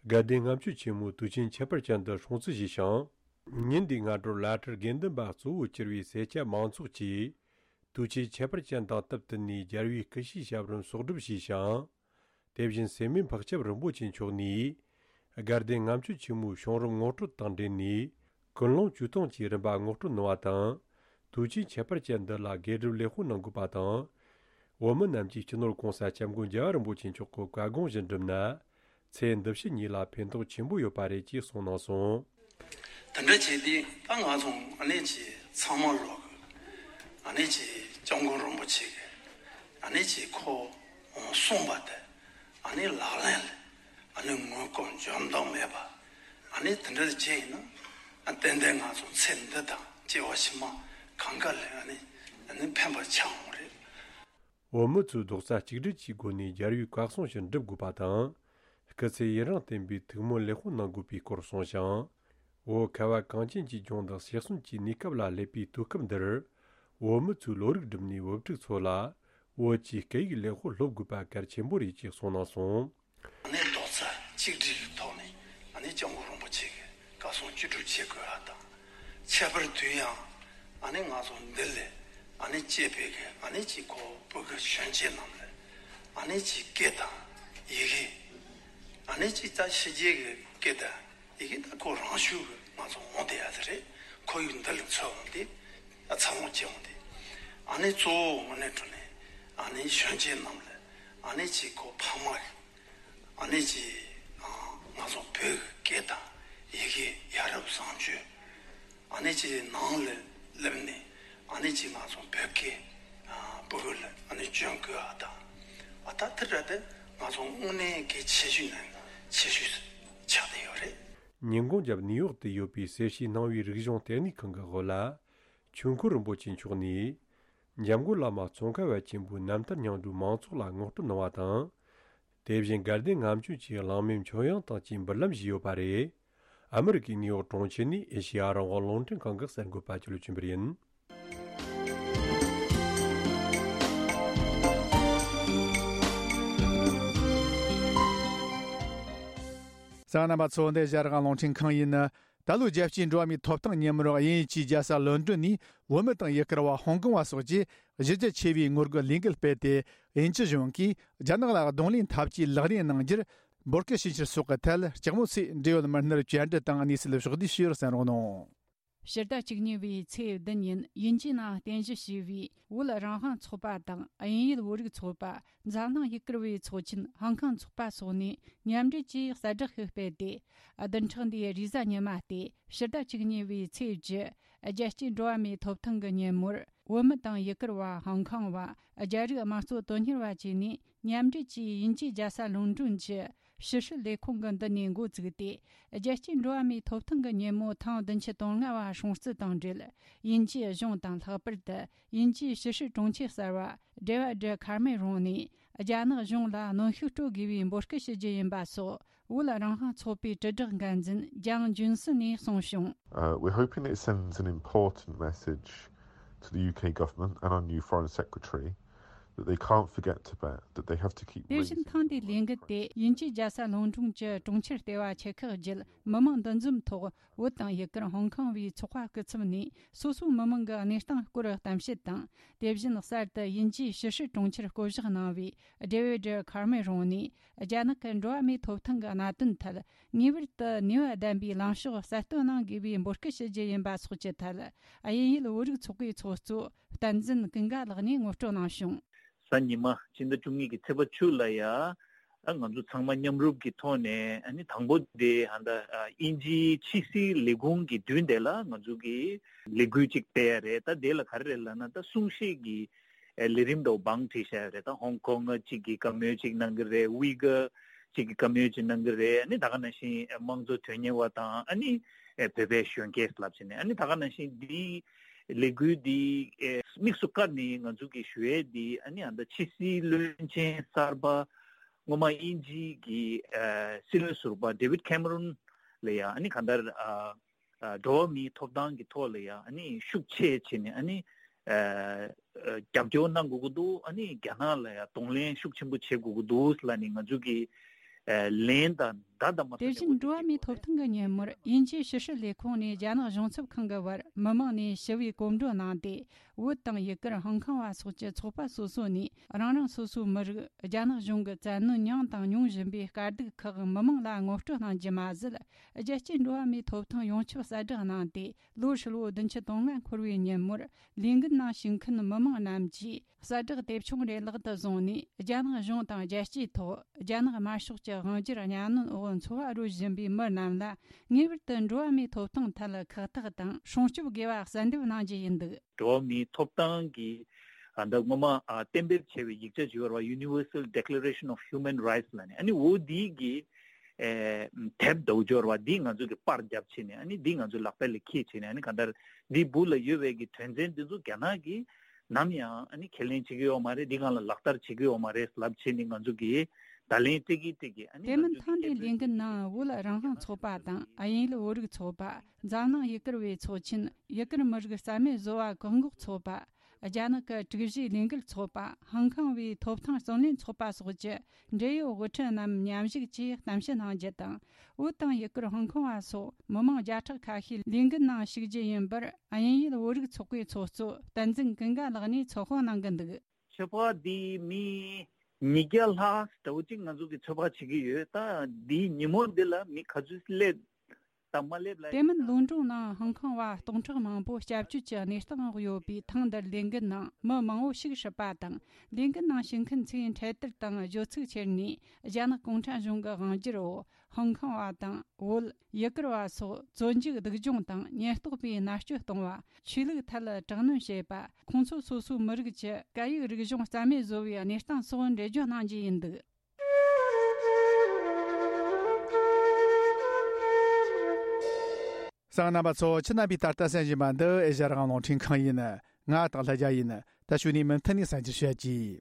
དགའ་ལྡན་ལྔ་མཆོད་ཆེན་མོའི་དུས་ཆེན་ཁྱད་པར་ཅན་དུ་སྲུང་བརྩི་བྱས་ཤིང་། ཉིན་འདིའི་སྔ་དྲོར་བླ་སྤྲུལ་དགེ་འདུན་པ་གཙོ་བོ་གྱུར་བའི་སེར་སྐྱ་མང་ཚོགས་ཀྱིས། དུས་ཆེན་ཁྱད་པར་ཅན་དང་སྟབས་བསྟུན་ནས་རྒྱལ་བའི་སྐུ་ཕྱྭའི་ཞབས་རིམ་གསོག་སྒྲུབ་བྱས་ཤིང་། དེ་བཞིན་སེར་སྨད་འཕགས་སྐྱབས་རིན་པོ་ཆེ་མཆོག་ནས། དགའ་ལྡན་ལྔ་མཆོད་ཆེན་མོའི་བྱུང་རིམ་ངོ་སྤྲོད་དང་འབྲེལ་ནས། ཀུན་སློང་བཅུ་སྟོང་གི་རིམ་པ་ངོ་སྤྲོད་གནང་བ་དང་། དུས་ཆེན་ཁྱད་པར་ཅན་འདི་ལ་དགེ་སྒྲུབ་ལེགས་པོ་གནང་དགོས་པ་དང་། བོད་མི་རྣམས་ཀྱིས་སྤྱི་ནོར་༸གོང་ས་༸སྐྱབས་མགོན་རྒྱལ་བ་རིན་པོ་ཆེ་མཆོག་གི་བཀའ་དགོངས་བཞིན་བསྒྲུབས་ན། ཚེ་འདི་ཕྱི་གཉིས་ལ་ཕན་ཐོགས་ཆེན་པོ་ཡོད་པ་རེད་ཅེས་གསུངས་གནང་སོང་། དེ་འདྲ་བྱས་ཏེ་ད་ང་ཚོ་ཨ་ནེ་ཅི་ཚང་མ་ལོག་གི་ཨ་ནེ་ཅི་སྐྱབས་མགོན་རིན་པོ་ཆེ་གི་ཨ་ནེ་ཅི་ཁོ་གསུངས་པ་དེ་ཨ་ནེ་ལག་ལེན་ལ་ཨ་ནེ་ངོ་སྐོར་འཇོམས་དང་མེད་པ་ཨ་ནེ་དེ་འདྲ་བྱས་ཡིན་ན་ཨ་ཏན་ཏན་ང་ཚོ་ཚེ་འདི་དང་སྐྱེ་བ་ཕྱི་མ་གང་ག་ལ་ཨ་ནེ་ཨ་ནེ་ཕན་པ་ཆགས་འོང་རེད། བོད་མི་ཚོས་རྡོག་རྩ་གཅིག་སྒྲིལ་གྱི་སྒོ་ནས་རྒྱལ་བའི་བཀའ་གསུང་བཞིན་སྒྲུབ་དགོས་པ་དང་། སྐུ་ཚེ་ཡུན་རིང་བརྟན་པའི་ཐུགས་སྨོན་ལེགས་པོ་གནང་དགོས་པའི་སྐོར་གསུངས་ཤིང་། བོད་ཁ་བ་གངས་ཅན་གྱི་ལྗོངས་དང་ཕྱི་གསུམ་གྱི་གནས་སྐབས་ལ་སླེབས་པའི་དུས་སྐབས་འདིར། བོད་མི་ཚོས་བློ་རིག་བསྒྲིམས་ནས་བོད་ཕྲུག་ཚོ་ལ་བོད་ཀྱི་སྐད་ཡིག་ལེགས་པོ་སློབ་དགོས་པ་གལ་ཆེན་པོ་རེད་ཅེས་གསུངས་གནང་སོང་། ཨ་ནེ་རྡོག་རྩ་གཅིག་སྒྲིལ་གྱི་ཐོག་ནས་ཨ་ནེ་སྐྱབས་མགོན་རིན་པོ་ཆེ་གི་བཀའ་གསུང་བཅུད་སྒྲུབ་བྱེད་དགོས་པ་དང་། ཁྱད་པར་དུ་ཡང་ཨ་ནེ་ང་ཚོ་འདི་ལས་ཨ་ནེ་སྐྱེས་པའི་གི་ཨ་ནེ་ཅིག་ཁོ་བོད་གི་གཞོན་སྐྱེས་རྣམས་ལ་ཨ་ནེ་ཅིག་སྐད་དང་ཡི་གེ་ཨ་ནེ་ཅིག་ད་ཕྱི་རྒྱལ་གི་སྐད་དང་ཡི་གེ་ད་ཁོ་རང་ཤུགས་གི་ང་ཚོ་འོང་བསྡད་ཡ་དེ་རེད། ཁོར་ཡུག་འདི་ལ་འཚོལ་འོང་སྟེ་འཚར་ལོངས་བྱེད་འོང་སྟེ་ཨ་ནེ་གཙོ་བོ་དངོས་གནས་དྲང་གནས་ཨ་ནེ་གཞོན་སྐྱེས་རྣམས་ལ་ཨ་ནེ་ཅིག་ཁོ་ཕ་མ་གི་ཨ་ནེ་ཅིག་ང་ཚོ་བོད་ཀྱི་སྐད་དང་ཡི་གེ་ཡ་རབས་བཟང་སྤྱོད་ཨ་ནེ་ཅིག་ནང་ལ་སླེབས་ནས་ཨ་ནེ་ཅིག་ང་ཚོ་བོད་སྐད་བོད་ལ་ཨ་ནེ་སྐྱོན་དགོས་པ་དང་ཨ་ད་དེ་འདྲ་དེ་ང་ཚོ་དངོས་གནས་གལ་ཆེ་ཤོས་ནས་ཆེ་ཤོས་ཆགས་བསྡད་ཡོད་རེད། ཉིན་གུང་རྒྱབ་ནིའུ་ཡོག་ཏུ་ཡོད་པའི་གསེར་ཕྱེའི་སྣང་བའི་རིག་གཞུང་ལྟེ་གནས་ཁང་གི་འོག་ལ། ཆོས་འཁོར་རིན་པོ་ཆེ་མཆོག་ནས། འཇམ་མགོན་བླ་མ་ཙོང་ཁ་པ་ཆེན་པོའི་རྣམ་ཐར་སྙིང་བསྡུས་མང་ཚོགས་ལ་ངོ་སྤྲོད་གནང་བ་དང་། དེ་བཞིན་དགའ་ལྡན་ལྔ་མཆོད་ཀྱི་གླེང་མོལ་མཆོད་དབྱངས་དང་བཅས་འབུལ་ལམ་ཞུས་ཡོད་པ་རེད། ཨ་མི་རི་ཀའི་ནིའུ་ཡོག་གྲོང་ཁྱེར་ནས་ཨེ་ཤེ་ཡ་རང་དབང་རླུང་འཕྲིན་ཁང་གི་གསར་འགོད་པ་ཅོ་ལི་ཆོས་འཕེལ་ཡིན། གསན་མཁན་རྣམ་པ་ཚོ། འདི་ཨེ་ཤེ་ཡ་རང་དབང་རླུང་འཕྲིན་ཁང་ཡིན། ད་ལོའི་རྒྱལ་སྤྱིའི་འགྲོ་བ་མིའི་ཐོབ་ཐང་ཉིན་མོར་དབྱིན་ཡུལ་གྱི་རྒྱལ་ས་ལོན་ཌོན་ནས་བོད་མི་དང་ཡུལ་གར་བ་ཧོང་ཀོང་བ་སོགས་ཀྱིས་གཞི་རྒྱ་ཆེ་བའི་ངོ་རྒོལ་ལས་འགུལ་སྤེལ་ཏེ། དབྱིན་ཇི་གཞུང་གིས་རྒྱ་ནག་ལ་གདོང་ལེན་འཐབ་ཇུས་ལག་ལེན་གནང་རྒྱུར་འབོད་སྐུལ་ཞུ་འཆར་སོགས་ཀྱི་ཐད་ལྕགས་མོ་ཚེ་འབྲེལ་ཡོད་མི་སྣར་བཅར་འདྲི་དང་གནས་ཚུལ་ཕྱོགས་བསྡུས་ཞུས་པར་གསན་རོགས་གནང་། ཕྱི་ཟླ་བཅུ་གཉིས་པའི་ཚེས་བདུན་ཉིན་དབྱིན་ཇིའི་ནང་རྟེན་གཞི་བྱས་པའི་བོད་རང་དབང་ཚོགས་པ་དང་དབྱིན་ཡུལ་བོད་རིགས་ཚོགས་པ། འཛམ་གླིང་ཡུལ་གར་བའི་ཚོགས་ཆེན་ཧོང་ཀོང་ཚོགས་པ་སོགས་ནས་མཉམ་འབྲེལ་གྱིས་གསལ་བསྒྲགས་ཤིག་སྤེལ་ཏེ། བདུན་ཕྲག་འདིའི་རེས་གཟའ་ཉི་མ་སྟེ་ཕྱི་ཟླ་བཅུ་གཉིས་པའི་ཚེས་བཅུ། རྒྱལ་སྤྱིའི་འགྲོ་བ་མིའི་ཐོབ་ཐང་གི་ཉིན་མོར། བོད་མི་དང་ཡུལ་གར་བ། ཧོང་ཀོང་བ། རྒྱ་རིགས་དམངས་གཙོ་དོན་གཉེར་བ་བཅས་ནས་མཉམ་འབྲེལ་གྱིས་དབྱིན་ཇིའི་རྒྱལ་ས་ལོན་ཌོན་གྱི་ཕྱི་སྲིད་ལས་ཁུངས་ཀྱི་མདུན་ནས་འགོ་བཙུགས་ཏེ། རྒྱལ་སྤྱིའི་འགྲོ་བ་མིའི་ཐོབ་ཐང་གི་ཉིན་མོ་ཐེངས་བདུན་ཅུ་དོན་ལྔ་བ་སྲུང་བརྩི་དང་འབྲེལ། དབྱིན་ཇིའི་གཞུང་དང་། ལྷག་པར་དུ་དབྱིན་ཇིའི་ཕྱི་སྲིད་དྲུང་ཆེ་གསར་བ་ཌེ་ཝིཌ་ཁ་མེ་རོན་ནས། རྒྱ་ནག་གཞུང་ལ་གནོན་ཤུགས་སྤྲོད་དགོས་པའི་འབོད་སྐུལ་ཞུ་རྒྱུ་ཡིན་པ་སོགས། བོད་རང་དབང་ཚོགས་པའི་དྲིལ་བསྒྲགས་འགན་འཛིན་ལྗང་ལྗུན་སུན་ནས་གསུངས་བྱུང་། Uh, we're hoping it sends an important message to the U K government and our new foreign secretary that they can't forget Tibet, that they have to keep དེ་བཞིན་raising ཐེངས་འདིའི་ལས་འགུལ་དེ་དབྱིན་ཇིའི་རྒྱལ་ས་ལོན་ཌོན་གྱི་གྲོང་ཁྱེར་ལྟེ་བ་ཆེ་ཁག་བརྒྱུད་མི་མང་འདུ་འཛོམས་ཐོག་བོད་དང་ཡུལ་གར་ཧོང་ཀོང་བའི་ཚོགས་པ་སྐུ་ཚབ་ནས་སོ་སོའི་མི་མང་གི་གནས་སྟངས་སྐོར་གཏམ་བཤད་དང་། དེ་བཞིན་གསར་དུ་དབྱིན་ཇིའི་ཕྱི་སྲིད་དྲུང་ཆེར་བསྐོ་གཞག་གནང་བའི་ཌེ་ཝིཌ་ཁ་མེ་རོན་ནས། རྒྱ་ནག་གི་འགྲོ་བ་མིའི་ཐོབ་ཐང་གི་གནད་དོན་ཐད་ངེས་པར་དུ་ནུས་པ་ལྡན་པའི་ལངས་ཕྱོགས་གསལ་སྟོན་གནང་དགོས་པའི་འབོད་སྐུལ་ཞུ་རྒྱུ་ཡིན་པ་སོགས་ཀྱི་ཐད། དབྱིན་ཡུལ་བོད་རིགས་ཚོགས་པའི་ཚོགས་གཙོ་བསྟན་འཛིན་ཀུན་དགའ་ལགས་ནས་ངོ་སྤྲོད་གནང་བྱུང་། གཟའ་ཉི་མ་སྤྱི་ཟླ་བཅུ་གཉིས་ཀྱི་ཚེས་པ་བཅུ་ལ་ཡ། ཨ་ང་ཚོ་ཚང་མ་མཉམ་རུབ་ཀྱི་ཐོག་ནས་ཨ་ནི་དང་པོ་དེ་ཧ་ད་ཨ་དབྱིན་ཇིའི་ཕྱི་སྲིད་ལས་ཁུངས་ཀྱི་མདུན་དེ་ལ་ང་ཚོ་གི་ལས་འགུལ་ཅིག་སྤེལ་ཡ་རེད། ད་དེ་ལ་ག་རེ་རེད་ལབ་ན། ད་གསུང་བཤད་ཀྱི་ཨ་ལས་རིམ་འདྲ་བོ་བང་བསྒྲིགས་བྱས་ཡོད་རེད། ད་ཧོང་ཀོང་གཅིག་གིས་བཀའ་མོལ་ཅིག་གནང་གི་རེད། ཝི་ག་གཅིག་གིས་བཀའ་མོལ་ཅིག་གནང་གི་རེད། ཨ་ནི་ད་ག་ནང་བཞིན་དམངས་གཙོ་དོན་གཉེར་བ་དང་། ཨ་ནི་བོད་པའི་གཞོན་སྐྱེས་ལབ་བྱས་ནས། ཨ་ནི་ད་ག་ནང་བཞིན་འདི་ལས་འགུལ་འདི་དམིགས་སུ་བཀར་ནས་ང་ཚོ་གིས་ཞུ་ཡས་འདི། ཨ་ནི་ཨ་ད་ཕྱི་སྲིད་བློན་ཆེན་གསར་པ་སྔོན་མ་དབྱིན་ཇི་གི་སྲིད་བློན་ཟུར་པ་ཌེ་ཝིཌ་ཁེ་མ་རོན་ལ་ཡ། ཨ་ནི་གང་ལྟར་ཨ། ཨ་འགྲོ་བ་མིའི་ཐོབ་ཐང་གི་ཐོག་ལ་ཡང་ཨ་ནི་ཤུགས་ཆེ་བྱས་ནས་ཨ་ནི་ཨ་ཨ་རྒྱབ་སྐྱོར་གནང་དགོས་ཀྱི་འདུག་ཨ་ནི་རྒྱ་ནག་ལ་ཡང་གདོང་ལེན་ཤུགས་ཆེན་པོ་བྱེད་དགོས་ཀྱི་འདུག་ལབ་ནས་ང་ཚོ་གི་ཨ་ལན་དང་ ད་ལྟ་མ་དེ་བཞིན་འགྲོ་བ་མིའི་ཐོབ་ཐང་གི་ཉིན་མོར་དབྱིན་ཇིའི་ཕྱི་སྲིད་ལས་ཁུངས་ནས་རྒྱ་ནག་གཞུང་ཚབ་ཁང་གི་བར་མི་མང་ནས་ཞི་བའི་གོམ་བགྲོད་གནང་སྟེ། བོད་དང་ཡུ་གུར་ཧོང་ཀོང་བ་སོགས་ཀྱི་ཚོགས་པ་སོ་སོ་ནས་རང་རང་སོ་སོའི་མི་རིགས་རྒྱ་ནག་གཞུང་གིས་བཙན་གནོན་མྱངས་དང་མྱོང་བཞིན་པའི་དཀའ་སྡུག་ཁག་མི་མང་ལ་ངོ་སྤྲོད་གནང་རྒྱུ་མ་ཟད། རྒྱལ་སྤྱིའི་འགྲོ་བ་མིའི་ཐོབ་ཐང་ཡོངས་ཁྱབ་གསལ་བསྒྲགས་གནང་སྟེ། ལོ་ཧྲིལ་བོ་བདུན་ཅུ་དོན་ལྔ་འཁོར་བའི་ཉིན་མོར་ལས་འགུལ་ནང་ཞུགས་མཁན་མི་མང་རྣམས་ཀྱིས་གསལ་བསྒྲགས་དེབ་ཆུང་རེ་ལག་ཏུ་བཟུང་ནས། རྒྱ་ནག་གཞུང་དང་རྒྱལ་སྤྱིའི་ཐོག་རྒྱ་ནག་དམར་ཤོག་གི་དབང་སྒྱུར་གཉའ་གནོན་འོག་འཚོ་བ་རོལ་བཞིན་པའི་མི་རྣམས་ལ། ངེས་པར་དུ་འགྲོ་བ་མིའི་ཐོབ་ཐང་ཐད་ཁག་ཐེག་དང་སྲུང་སྐྱོབ་དགོས་པ་གསལ་འདེབས་གནང་རྒྱུ་ཡིན་འདུག་འགྲོ་བ་མིའི་ཐོབ་ཐང་གི་ཨ་འདི་སྔོན་མ་ཨ་གཏན་འབེབས་བྱས་པའི་ཡིག་ཆ་ཞིག་ཡོད་རེད་བ། Universal Declaration of Human Rights ལབ་ནས། ཨ་ནི་འོ་འདི་གི་ཨེ་དེབ་འདྲ་བོ་ཅིག་ཡོད་རེད་བ། འདི་ང་ཚོ་གི་པར་བརྒྱབ་བྱས་ནས། ཨ་ནི་འདི་ང་ཚོ་ལག་པ་ལ་འཁྱེར་བྱས་ནས། ཨ་ནི་གང་ལྟར་འདི་སྦུག་ལ་ཡོད་པའི་གི་དོན་ཚན་འདི་ཚོ་རྒྱ་ནག་གིས་ནམ་ཡང་ཨ་ནི་ཁས་ལེན་བྱེད་ཀྱི་ཡོད་མ་རེད། འདི་སྒང་ལ་ལག་བསྟར་བྱེད་ཀྱི་ཡོད་མ་རེད་ལབ་བྱས་ནས། ང་ཚོ་གིས་བརྡ་ལན་སྤྲད་ཀྱི་སྤྲད་ཀྱི། ཨ་ནི་དེ་ང་མིན་ཚོ་ཐེངས་འདིའི་ལས་འགུལ་ནང་བོད་རང་དབང་ཚོགས་པ་དང་། དབྱིན་ཡུལ་བོད་རིགས་ཚོགས་པ། འཛམ་གླིང་ཡུ་གུར་བའི་ཚོགས་ཆེན། ཡུ་གུར་མི་རིགས་རྩ་མེད་བཟོ་བ་བཀག་འགོག་ཚོགས་པ། རྒྱ་ནག་གི་དྲུག་བཞིའི་ལས་འགུལ་ཚོགས་པ། ཧང་ཀང་བའི་ཐོབ་ཐང་བརྩོན་ལེན་ཚོགས་པ་སོགས་ཀྱི་འབྲེལ་ཡོད་དབུ་ཁྲིད་རྣམས་མཉམ་ཞུགས་ཀྱིས་གཏམ་བཤད་གནང་རྒྱུ་དང་། བོད་དང་ཡུ་གུར་ཧོང་ཀོང་བ་སོགས་མི་མང་བརྒྱ་ཕྲག་ཁ་ཤས་ལས་འགུལ་ནང་ཞུགས་རྒྱུ་ཡིན་པར། དབྱིན་ཡུལ་བོད་རིགས་ཚོགས་པའི་ཚོགས་གཙོ་བསྟན་འཛིན་ཀུན་དགའ་ལགས་ནས་ཚོད་དཔག་གནང་གི་འདུག་ཚོད་དཔག་འདི་མི་ཉིས་བརྒྱ་ལྷག་འདྲ་བོ་ཅིག་ང་ཚོ་གིས་ཚོད་དཔག་བྱེད་ཀྱི་ཡོད། ད་འདིའི་ཉིན་མོ་འདི་ལ་མི་ག་ཚོད་སླེབས་དང་མ་སླེབས་ལ། དེ་མིན་ལོན་ཀྲོང་ནང་ཧང་ཀོང་བ་སྟོང་ཕྲག་མང་པོ་སྐྱབས་བཅོལ་གྱི་གནས་སྟངས་འོག་ཡོད་པས། ཐེངས་འདིར་ལས་འགུལ་ནང་མི་མང་བོ་ཞིག་ཧྲིལ་པ་དང་། ལས་འགུལ་ནང་ཞུགས་མཁན་ཚོས་འཕྲེད་དར་དང་བརྗོད་ཚིག་ཁྱེར་ནས། རྒྱ་ནག་གུང་ཁྲན་གཞུང་གི་དབང་སྒྱུར་འོག་ཧང་ཀོང་བ་དང་བོད། ཡུ་གུར་བ་སོགས་བཙོན་འཇུག་སྡུག་སྦྱོང་དང་ཉེན་རྟོག་པས་མནར་གཅོད་གཏོང་བ། ཆོས་ལུགས་ཐད་དྲག་གནོན་བྱེད་པ། ཁོང་ཚོ་སོ་སོའི་མི་རིགས་ཀྱི་སྐད་ཡིག་རིག་གཞུང་རྩ་མེད་བཟོ་བའི་གནས་སྟངས་སོགས་འགྲེལ་བརྗོད་གནང་རྒྱུ་ཡིན་འདུག་གསན་མཁན་རྣམ་པ་ཚོ། ཁྱེད་རྣམ་པས་ད་ལྟ་གསན་བཞིན་པ་འདི་ཨེ་ཤ་ཡ་རང་དབང་རླུང་འཕྲིན་ཁང་ཡིན། ང་སྟག་ལྷ་རྒྱལ་ཡིན། ད་གཞུག་ནས་མུ་མཐུད་ནས་གསན་རྒྱུ་བྱེད་ཀྱི།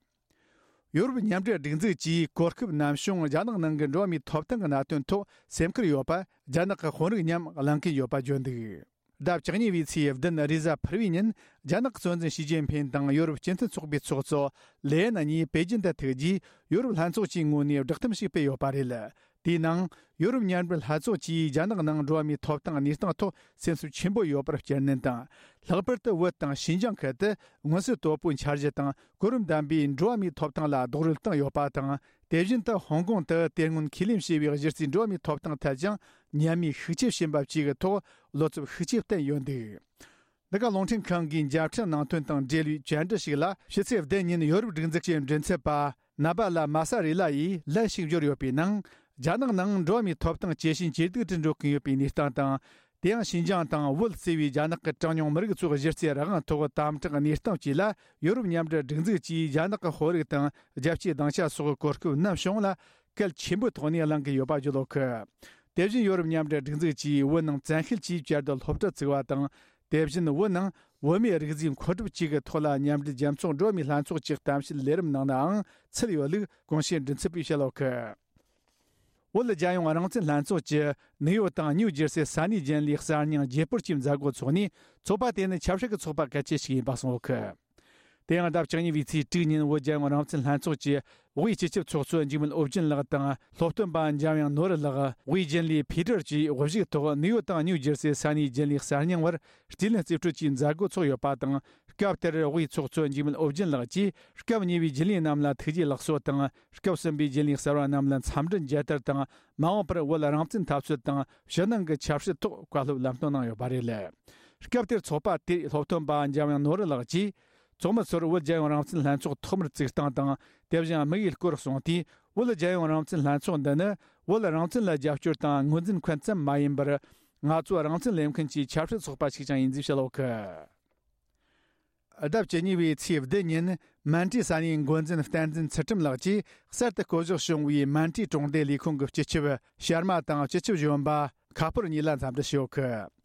ཡོ་རོབ་མཉམ་འབྲེལ་སྒྲིག་འཛུགས་ཀྱིས་གོ་སྐབས་ནམ་བྱུང་རྒྱ་ནག་ནང་གི་འགྲོ་བ་མིའི་ཐོབ་ཐང་གི་གནད་དོན་ཐོག་སེམས་ཁུར་ཡོད་པ། རྒྱ་ནག་གི་དཔོན་རིགས་མཉམ་གླེང་གིན་ཡོད་པ་བརྗོད་འདུག་ཟླ་བཅུ་གཉིས་པའི་ཚེས་བདུན་རེས་གཟའ་ཕུར་བུའི་ཉིན། རྒྱ་ནག་གི་གཙོ་འཛིན་ཞི་ཅིན་ཕིན་དང་ཡོ་རོབ་སྤྱི་མཐུན་ཚོགས་པའི་ཚོགས་གཙོ་ལེ་ཡེན་གཉིས་པེ་ཅིན་དུ་ཐུག་རྗེས། ཡོ་རོབ་ལྷན་ཚོགས་ཀྱི་ངོས་ནས་བསྒྲགས་གཏམ་ཞིག་སྤེལ་ཡོད་པ་རེད། དེའི་ནང་། ཡོ་རོབ་མཉམ་འབྲེལ་ལྷན་ཚོགས་ཀྱིས་རྒྱ་ནག་ནང་འགྲོ་བ་མིའི་ཐོབ་ཐང་གནས་སྟངས་ཐོག་སེམས་འཚབ་ཆེན་པོ་ཡོད་པར་བསྐྱར་ནན་དང་། ལྷག་པར་དུ་བོད་དང་ཞིན་ཅང་ཁུལ་དུ་མངོན་གསལ་དོད་པོའི་འཆར་གཞི་དང་གོ་རིམ་ལྡན་པའི་འགྲོ་བ་མིའི་ཐོབ་ཐང་ལ་རྡོག་རོལ་བཏང་ཡོད་པ་དང་། དེ་བཞིན་དུ་ཧོང་ཀོང་དུ་དེ་སྔོན་ཁས་ལེན་བྱས་པའི་གཞི་རྩའི་འགྲོ་བ་མིའི་ཐོབ་ཐང་ཐད་ཀྱང་ཉམས་དམས་ཤུགས་ཆེ་ཕྱིན་པ་བཅས་ཀྱི་ཐོག་བློ་འཚབ་ཤུགས་ཆེ་བསྟན་ཡོད་འདུག་འདི་ག་རླུང་འཕྲིན་ཁང་གིས་མཇལ་འཕྲད་གནང་དོན་དང་འབྲེལ་བའི་བཅར་འདྲི་ཞིག་ལ། ཕྱི་ཚེས་བདུན་ཉིན་ཡོ་རོབ་སྒྲིག་འཛུགས་ཀྱི་མགྲིན་ཚབ་པ་ནཱ་བཱ་ལ་མཱ་ས་རེ་ལ་ཡིས་ལན་ཞིག་འབྱོར་ཡོད་པའི་ནང་། རྒྱ་ནག་ནང་འགྲོ་བ་མིའི་ཐོབ་ཐང་ཇེ་ཞན་ཇེ་སྡུག་ཏུ་འགྲོ་གིན་ཡོད་པའི་གནས་སྟངས་དང་། དེ་ཡང་ཞིན་ཅང་དང་བོད་གཙོས་པའི་རྒྱ་ནག་གི་གྲངས་ཉུང་མི་རིགས་ཚོའི་གཞི་རྩའི་རང་དབང་ཐོག་དམ་དྲག་གནས་སྟངས་བཅས་ལ། ཡོ་རོབ་མཉམ་འབྲེལ་སྒྲིག་འཛུགས་ཀྱིས་རྒྱ་ནག་གི་དཔོན་རིགས་དང་རྒྱལ་སྤྱིའི་སྡིངས་ཆ་སོགས་གོ་སྐབས་ནམ་བྱུང་ལ་གལ་ཆེན་པོའི་ཐོག་ནས་གླེང་གི་ཡོད་པ་བརྗོད་ཡོད་གི། དེ་བཞིན་ཡོ་རོབ་མཉམ་འབྲེལ་སྒྲིག་འཛུགས་ཀྱིས་བོད་ནང་བཙན་ཤེད་ཀྱིས་བསྐྱར་དུ་སློབ་གྲྭ་བཙུགས་པ་དང་། དེ་བཞིན་བོད་ནང་བོད་མིའི་རིགས་རྫས་མཁོ་སྒྲུབ་བཅས་ཀྱི་ཐོག་ལ་མཉམ་འབྲེལ་རྒྱལ་ཚོགས་འགྲོ་བ་མིའི་ལྷན་ཚོགས་ཀྱི་གཏམ་བཤད་ལས་རིམ་ནང་ནའང་ཚུད་ཡོད་ལུགས་གོང་ཞུས་མགྲིན་ཚབ་པས་བཤད་ཡོད་གི། བོད་རྒྱལ་ཡོངས་རང་བཙན་ལྷན་ཚོགས་ཀྱི་ནིའུ་ཡོག་དང་ནིའུ་ཇེར་སི་ས་གནས་རྒྱུན་ལས་གསར་རྙིང་བརྗེ་སྤོར་གྱི་མཛད་སྒོ་འཚོགས་ནས། ཚོགས་པ་དེ་ནི་ཆབ་སྲིད་ཀྱི་ཚོགས་པ་གལ་ཆེ་ཞིག་ཡིན་པ་གསུངས་ཡོད་གི། དེ་ཡང་ཟླ་བཅུ་གཉིས་པའི་ཚེས་དྲུག་ཉིན་བོད་རྒྱལ་ཡོངས་རང་བཙན་ལྷན་ཚོགས་ཀྱི་དབུས་སྤྱི་ཁྱབ་ཚོགས་གཙོ་འཇིགས་མེད་ཨོ་རྒྱན་ལགས་དང་སློབ་སྟོན་པ་འཇམ་དབྱངས་ནོར་བུ་ལགས། དབུས་རྒྱུན་ལས་ཕི་ཏྲར་བཅས་དབུ་བཞུགས་ཐོག་ནིའུ་ཡོག་དང་ནིའུ་ཇེར་སི་ས་གནས་རྒྱུན་ལས་གསར་རྙིང་བར་རྩིས་ལེན་རྩིས་སྤྲོད་ཀྱི་མཛད་སྒོ་འཚོགས་ཡོད་པ་དང་། སྐབས་དེར་དབུས་ཚོགས་གཙོ་འཇིགས་མེད་ཨོ་རྒྱན་ལགས་ཀྱིས་སྐབས་གཉིས་པའི་རྒྱུན་ལས་རྣམས་ལ་ཐུགས་རྗེ་ལེགས་གསོལ་དང་། སྐབས་གསུམ་པའི་རྒྱུན་ལས་གསར་བ་རྣམས་ལ་འཚམས་འདྲི་མཇལ་དར་དང་། མ་འོངས་པར་བོད་རང་བཙན་འཐབ་རྩོད་དང་ཕྱི་ནང་གི་ཆབ་སྲིད་ཐོག་བཀའ་སློབ་ལམ་སྟོན་གནང་ཡོད་པ་རེད། སྐབས་དེར་ཚོགས་པ་དེའི་སློབ་སྟོན་པ་འཇམ་དབྱངས་ནོར་བུ་ལགས་ཀྱིས། ཚོགས་མི་ཚོར་བོད་རྒྱལ་ཡོངས་རང་བཙན་ལྷན་ཚོགས་ཐོག་མར་བཙུགས་སྟངས་དང་། དེ་བཞིན་དམིགས་ཡུལ་སྐོར་གསུངས་ཏེ། བོད་རྒྱལ་ཡོངས་རང་བཙན་ལྷན་ཚོགས་འདི་ནི་བོད་རང་བཙན་ལ་རྒྱབ་སྐྱོར་དང་ངོས་འཛིན་མཁན་ཙམ་མ་ཡིན་པར། ང་ཚོ་རང་བཙན་ལེན་མཁན་གྱི་ཆབ་སྲིད་ཚོགས་པ་ཞིག་ཀྱང་ཡིན་ཞེས་བཤད་ཡོད་གི། ཟླ་བཅུ་གཉིས་པའི་ཚེས་བདུན་ཉིན་མན་ཏྲི་ས་གནས་འགོ་འཛིན་བསྟན་འཛིན་ཚུལ་ཁྲིམས་ལགས་ཀྱིས་གསར་དུ་བསྐོ་གཞག་བྱུང་བའི་མན་ཏྲི་གྲོང་སྡེ་ལས་ཁུངས་ཀྱི་སྤྱི་ཁྱབ་ཤར་མ་དང་སྤྱི་ཁྱབ་གཞོན་པ་ཁ་ཕོར་གཉིས་ལ་འཚམས་འདྲི་ཞུས་ཡོད་གི།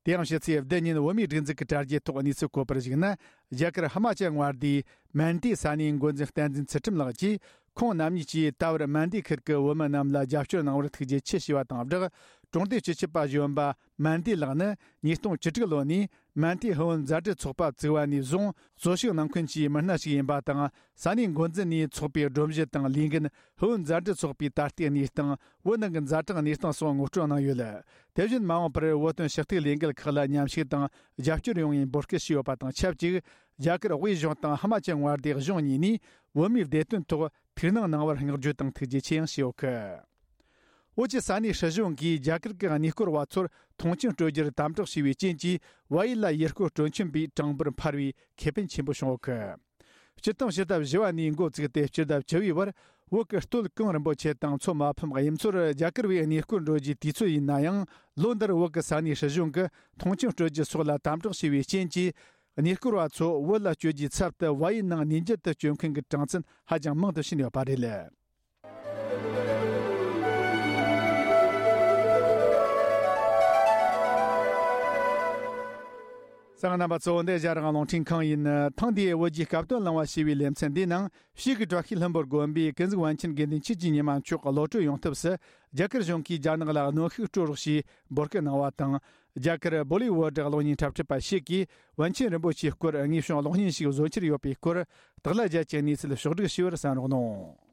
དེ་ཡང་ཕྱི་ཚེས་བདུན་ཉིན་བོད་མིའི་སྒྲིག་འཛུགས་ཀྱི་དྲ་རྒྱའི་ཐོག་གནས་ཚུལ་བཀོད་པར་གཞིགས་ན། རྒྱ་གར་ཧི་མ་ཅལ་མངའ་སྡེའི་མན་ཏྲི་ས་གནས་འགོ་འཛིན་བསྟན་འཛིན་ཚུལ་ཁྲིམས་ལགས་ཀྱིས། ཁོང་རྣམ་གཉིས་ཀྱིས་ད་བར་མན་ཏི་ཁུལ་གྱི་བོད་མི་རྣམས་ལ་རྒྱབ་སྐྱོར་གནང་བར་ཐུགས་རྗེ་ཆེ་ཞུས་པ་དང་སྦྲགས། གྲོང་སྡེའི་སྤྱི་ཁྱབ་པ་གཞོན་པ་མན་ཏི་ལགས་ནི་ཉིས་སྟོང་བཅུ་དྲུག་ལོ་ནས་མན་ཏི་ཧུའུ་མཛའ་འབྲེལ་ཚོགས་པ་བཙུགས་པ་ནས་བཟུང་གཙོ་ཤུགས་གནང་མཁན་གྱི་མི་སྣ་ཞིག་ཡིན་པ་དང་། ས་གནས་འགོ་འཛིན་ནས་ཚོགས་པའི་སྒྲོམ་གཞི་དང་ལས་འགན། ཧུའུ་མཛའ་འབྲེལ་ཚོགས་པའི་ད་ལྟའི་གནས་སྟངས། བོད་ནང་གི་ཛ་དྲག་གནས་སྟངས་སོགས་ངོ་སྤྲོད་གནང་ཡོད། དེ་བཞིན་མ་འོངས་པར་བོད་དོན་ཞུ་གཏུག་ལས་འགུལ་ཁག་ལ་མཉམ་ཞུགས་དང་རྒྱབ་སྐྱོར་ཡོང་བའི་འབོད་སྐུལ་ཞུས་ཡོད་པ་དང་ཆབས་ཅིག་རྒྱ་གར་དབུས་གཞུང་དང་ཧི་མ་ཅལ་མངའ་སྡེ་གཞུང་གཉིས་ནས་བོད་མིའི་བདེ་དོན་ཐོག་ཐུགས་སྣང་གནང་བར་བསྔགས་བརྗོད་དང་ཐུགས་རྗེ་ཆེ་ཡང་ཞུས་ཡོད་སྐད། བོད་ཀྱི་ས་གནས་སྲིད་གཞུང་གིས་རྒྱ་གར་གྱི་གནས་སྐོར་བ་ཚོར་མཐོང་ཆེན་སྤྲོད་རྒྱུར་དམ་དྲག་བྱས་པའི་རྐྱེན་གྱིས། བལ་ཡུལ་ལ་ཡུལ་སྐོར་སྤྲོ་འཆམ་པའི་གྲངས་འབོར་འཕར་བའི་ཁེ་ཕན་ཆེན་པོ་བྱུང་ཡོད་སྐད། སྤྱིར་བཏང་ཕྱི་ཟླ་བཞི་པ་ནས་འགོ་བཙུགས་ཏེ་སྤྱི་ཟླ་བཅུ་པའི་བར་བོད་ཀྱི་སྟོད་གངས་རིན་པོ་ཆེ་དང་མཚོ་མ་ཕམ་དབྱིབས་མཚོར་རྒྱ་གར་བས་གནས་སྐོར་འགྲོ་རྒྱུའི་དུས་ཚོད་ཡིན་ན་ཡང་། ལོ་འདིར་བོད་ཀྱི་ས་གནས་སྲིད་གཞུང་གིས་མཐོང་ཆེན་སྤྲོད་རྒྱུ་སོགས་ལ་དམ་དྲག་བྱས་པའི་རྐྱེན་གྱིས། གནས་སྐོར་བ་ཚོ་བོད་ལ་བསྐྱོད་རྒྱུའི་ཚབ་ཏུ་བལ་ཡུལ་ནང་གནས་མཇལ་དུ་བསྐྱོད་མཁན་གྱི་གྲངས་ཚད་ཧ་ཅང་མང་དུ་ཕྱིན་ཡོད་པ་རེད། གསན་མཁན་རྣམ་པ་ཚོ། འདི་རྒྱ་རང་རླུང་འཕྲིན་ཁང་ཡིན། ཐེངས་འདིའི་བོད་ཀྱི་སྐབས་དོན་གླེང་བ་ཞེས་པའི་ལེ་ཚན་འདིའི་ནང་། གཤིས་ཀྱི་བཀྲ་ཤིས་ལྷུན་པོར་དགོན་པའི་ཀུན་གཟིགས་པཎ་ཆེན་དགེ་འདུན་ཆོས་ཀྱི་ཉི་མ་མཆོག་གློད་གྲོལ་ཡོང་ཐབས་སུ། རྒྱ་གར་གཞུང་གིས་རྒྱ་ནག་ལ་གནོན་ཤུགས་སྤྲོད་རོགས་ཞེས་འབོད་སྐུལ་གནང་བ་དང་། རྒྱ་གར་བོ་ལི་ཝུ་ཌི་གློག་བརྙན་འཁྲབ་ཁྲིད་པ་ཞིག་གིས་པཎ་ཆེན་རིན་པོ་ཆེའི་སྐོར་དངོས་བྱུང་གློག་བརྙན་ཞིག་བཟོ་འཆར་ཡོད་པའི་སྐོར། དག་ལ་རྒྱ་ཆེའི་གནས་ཚུལ་ཕྱོགས་བསྒྲིགས་ཞུས་པར་གསན་རོགས་གནང་།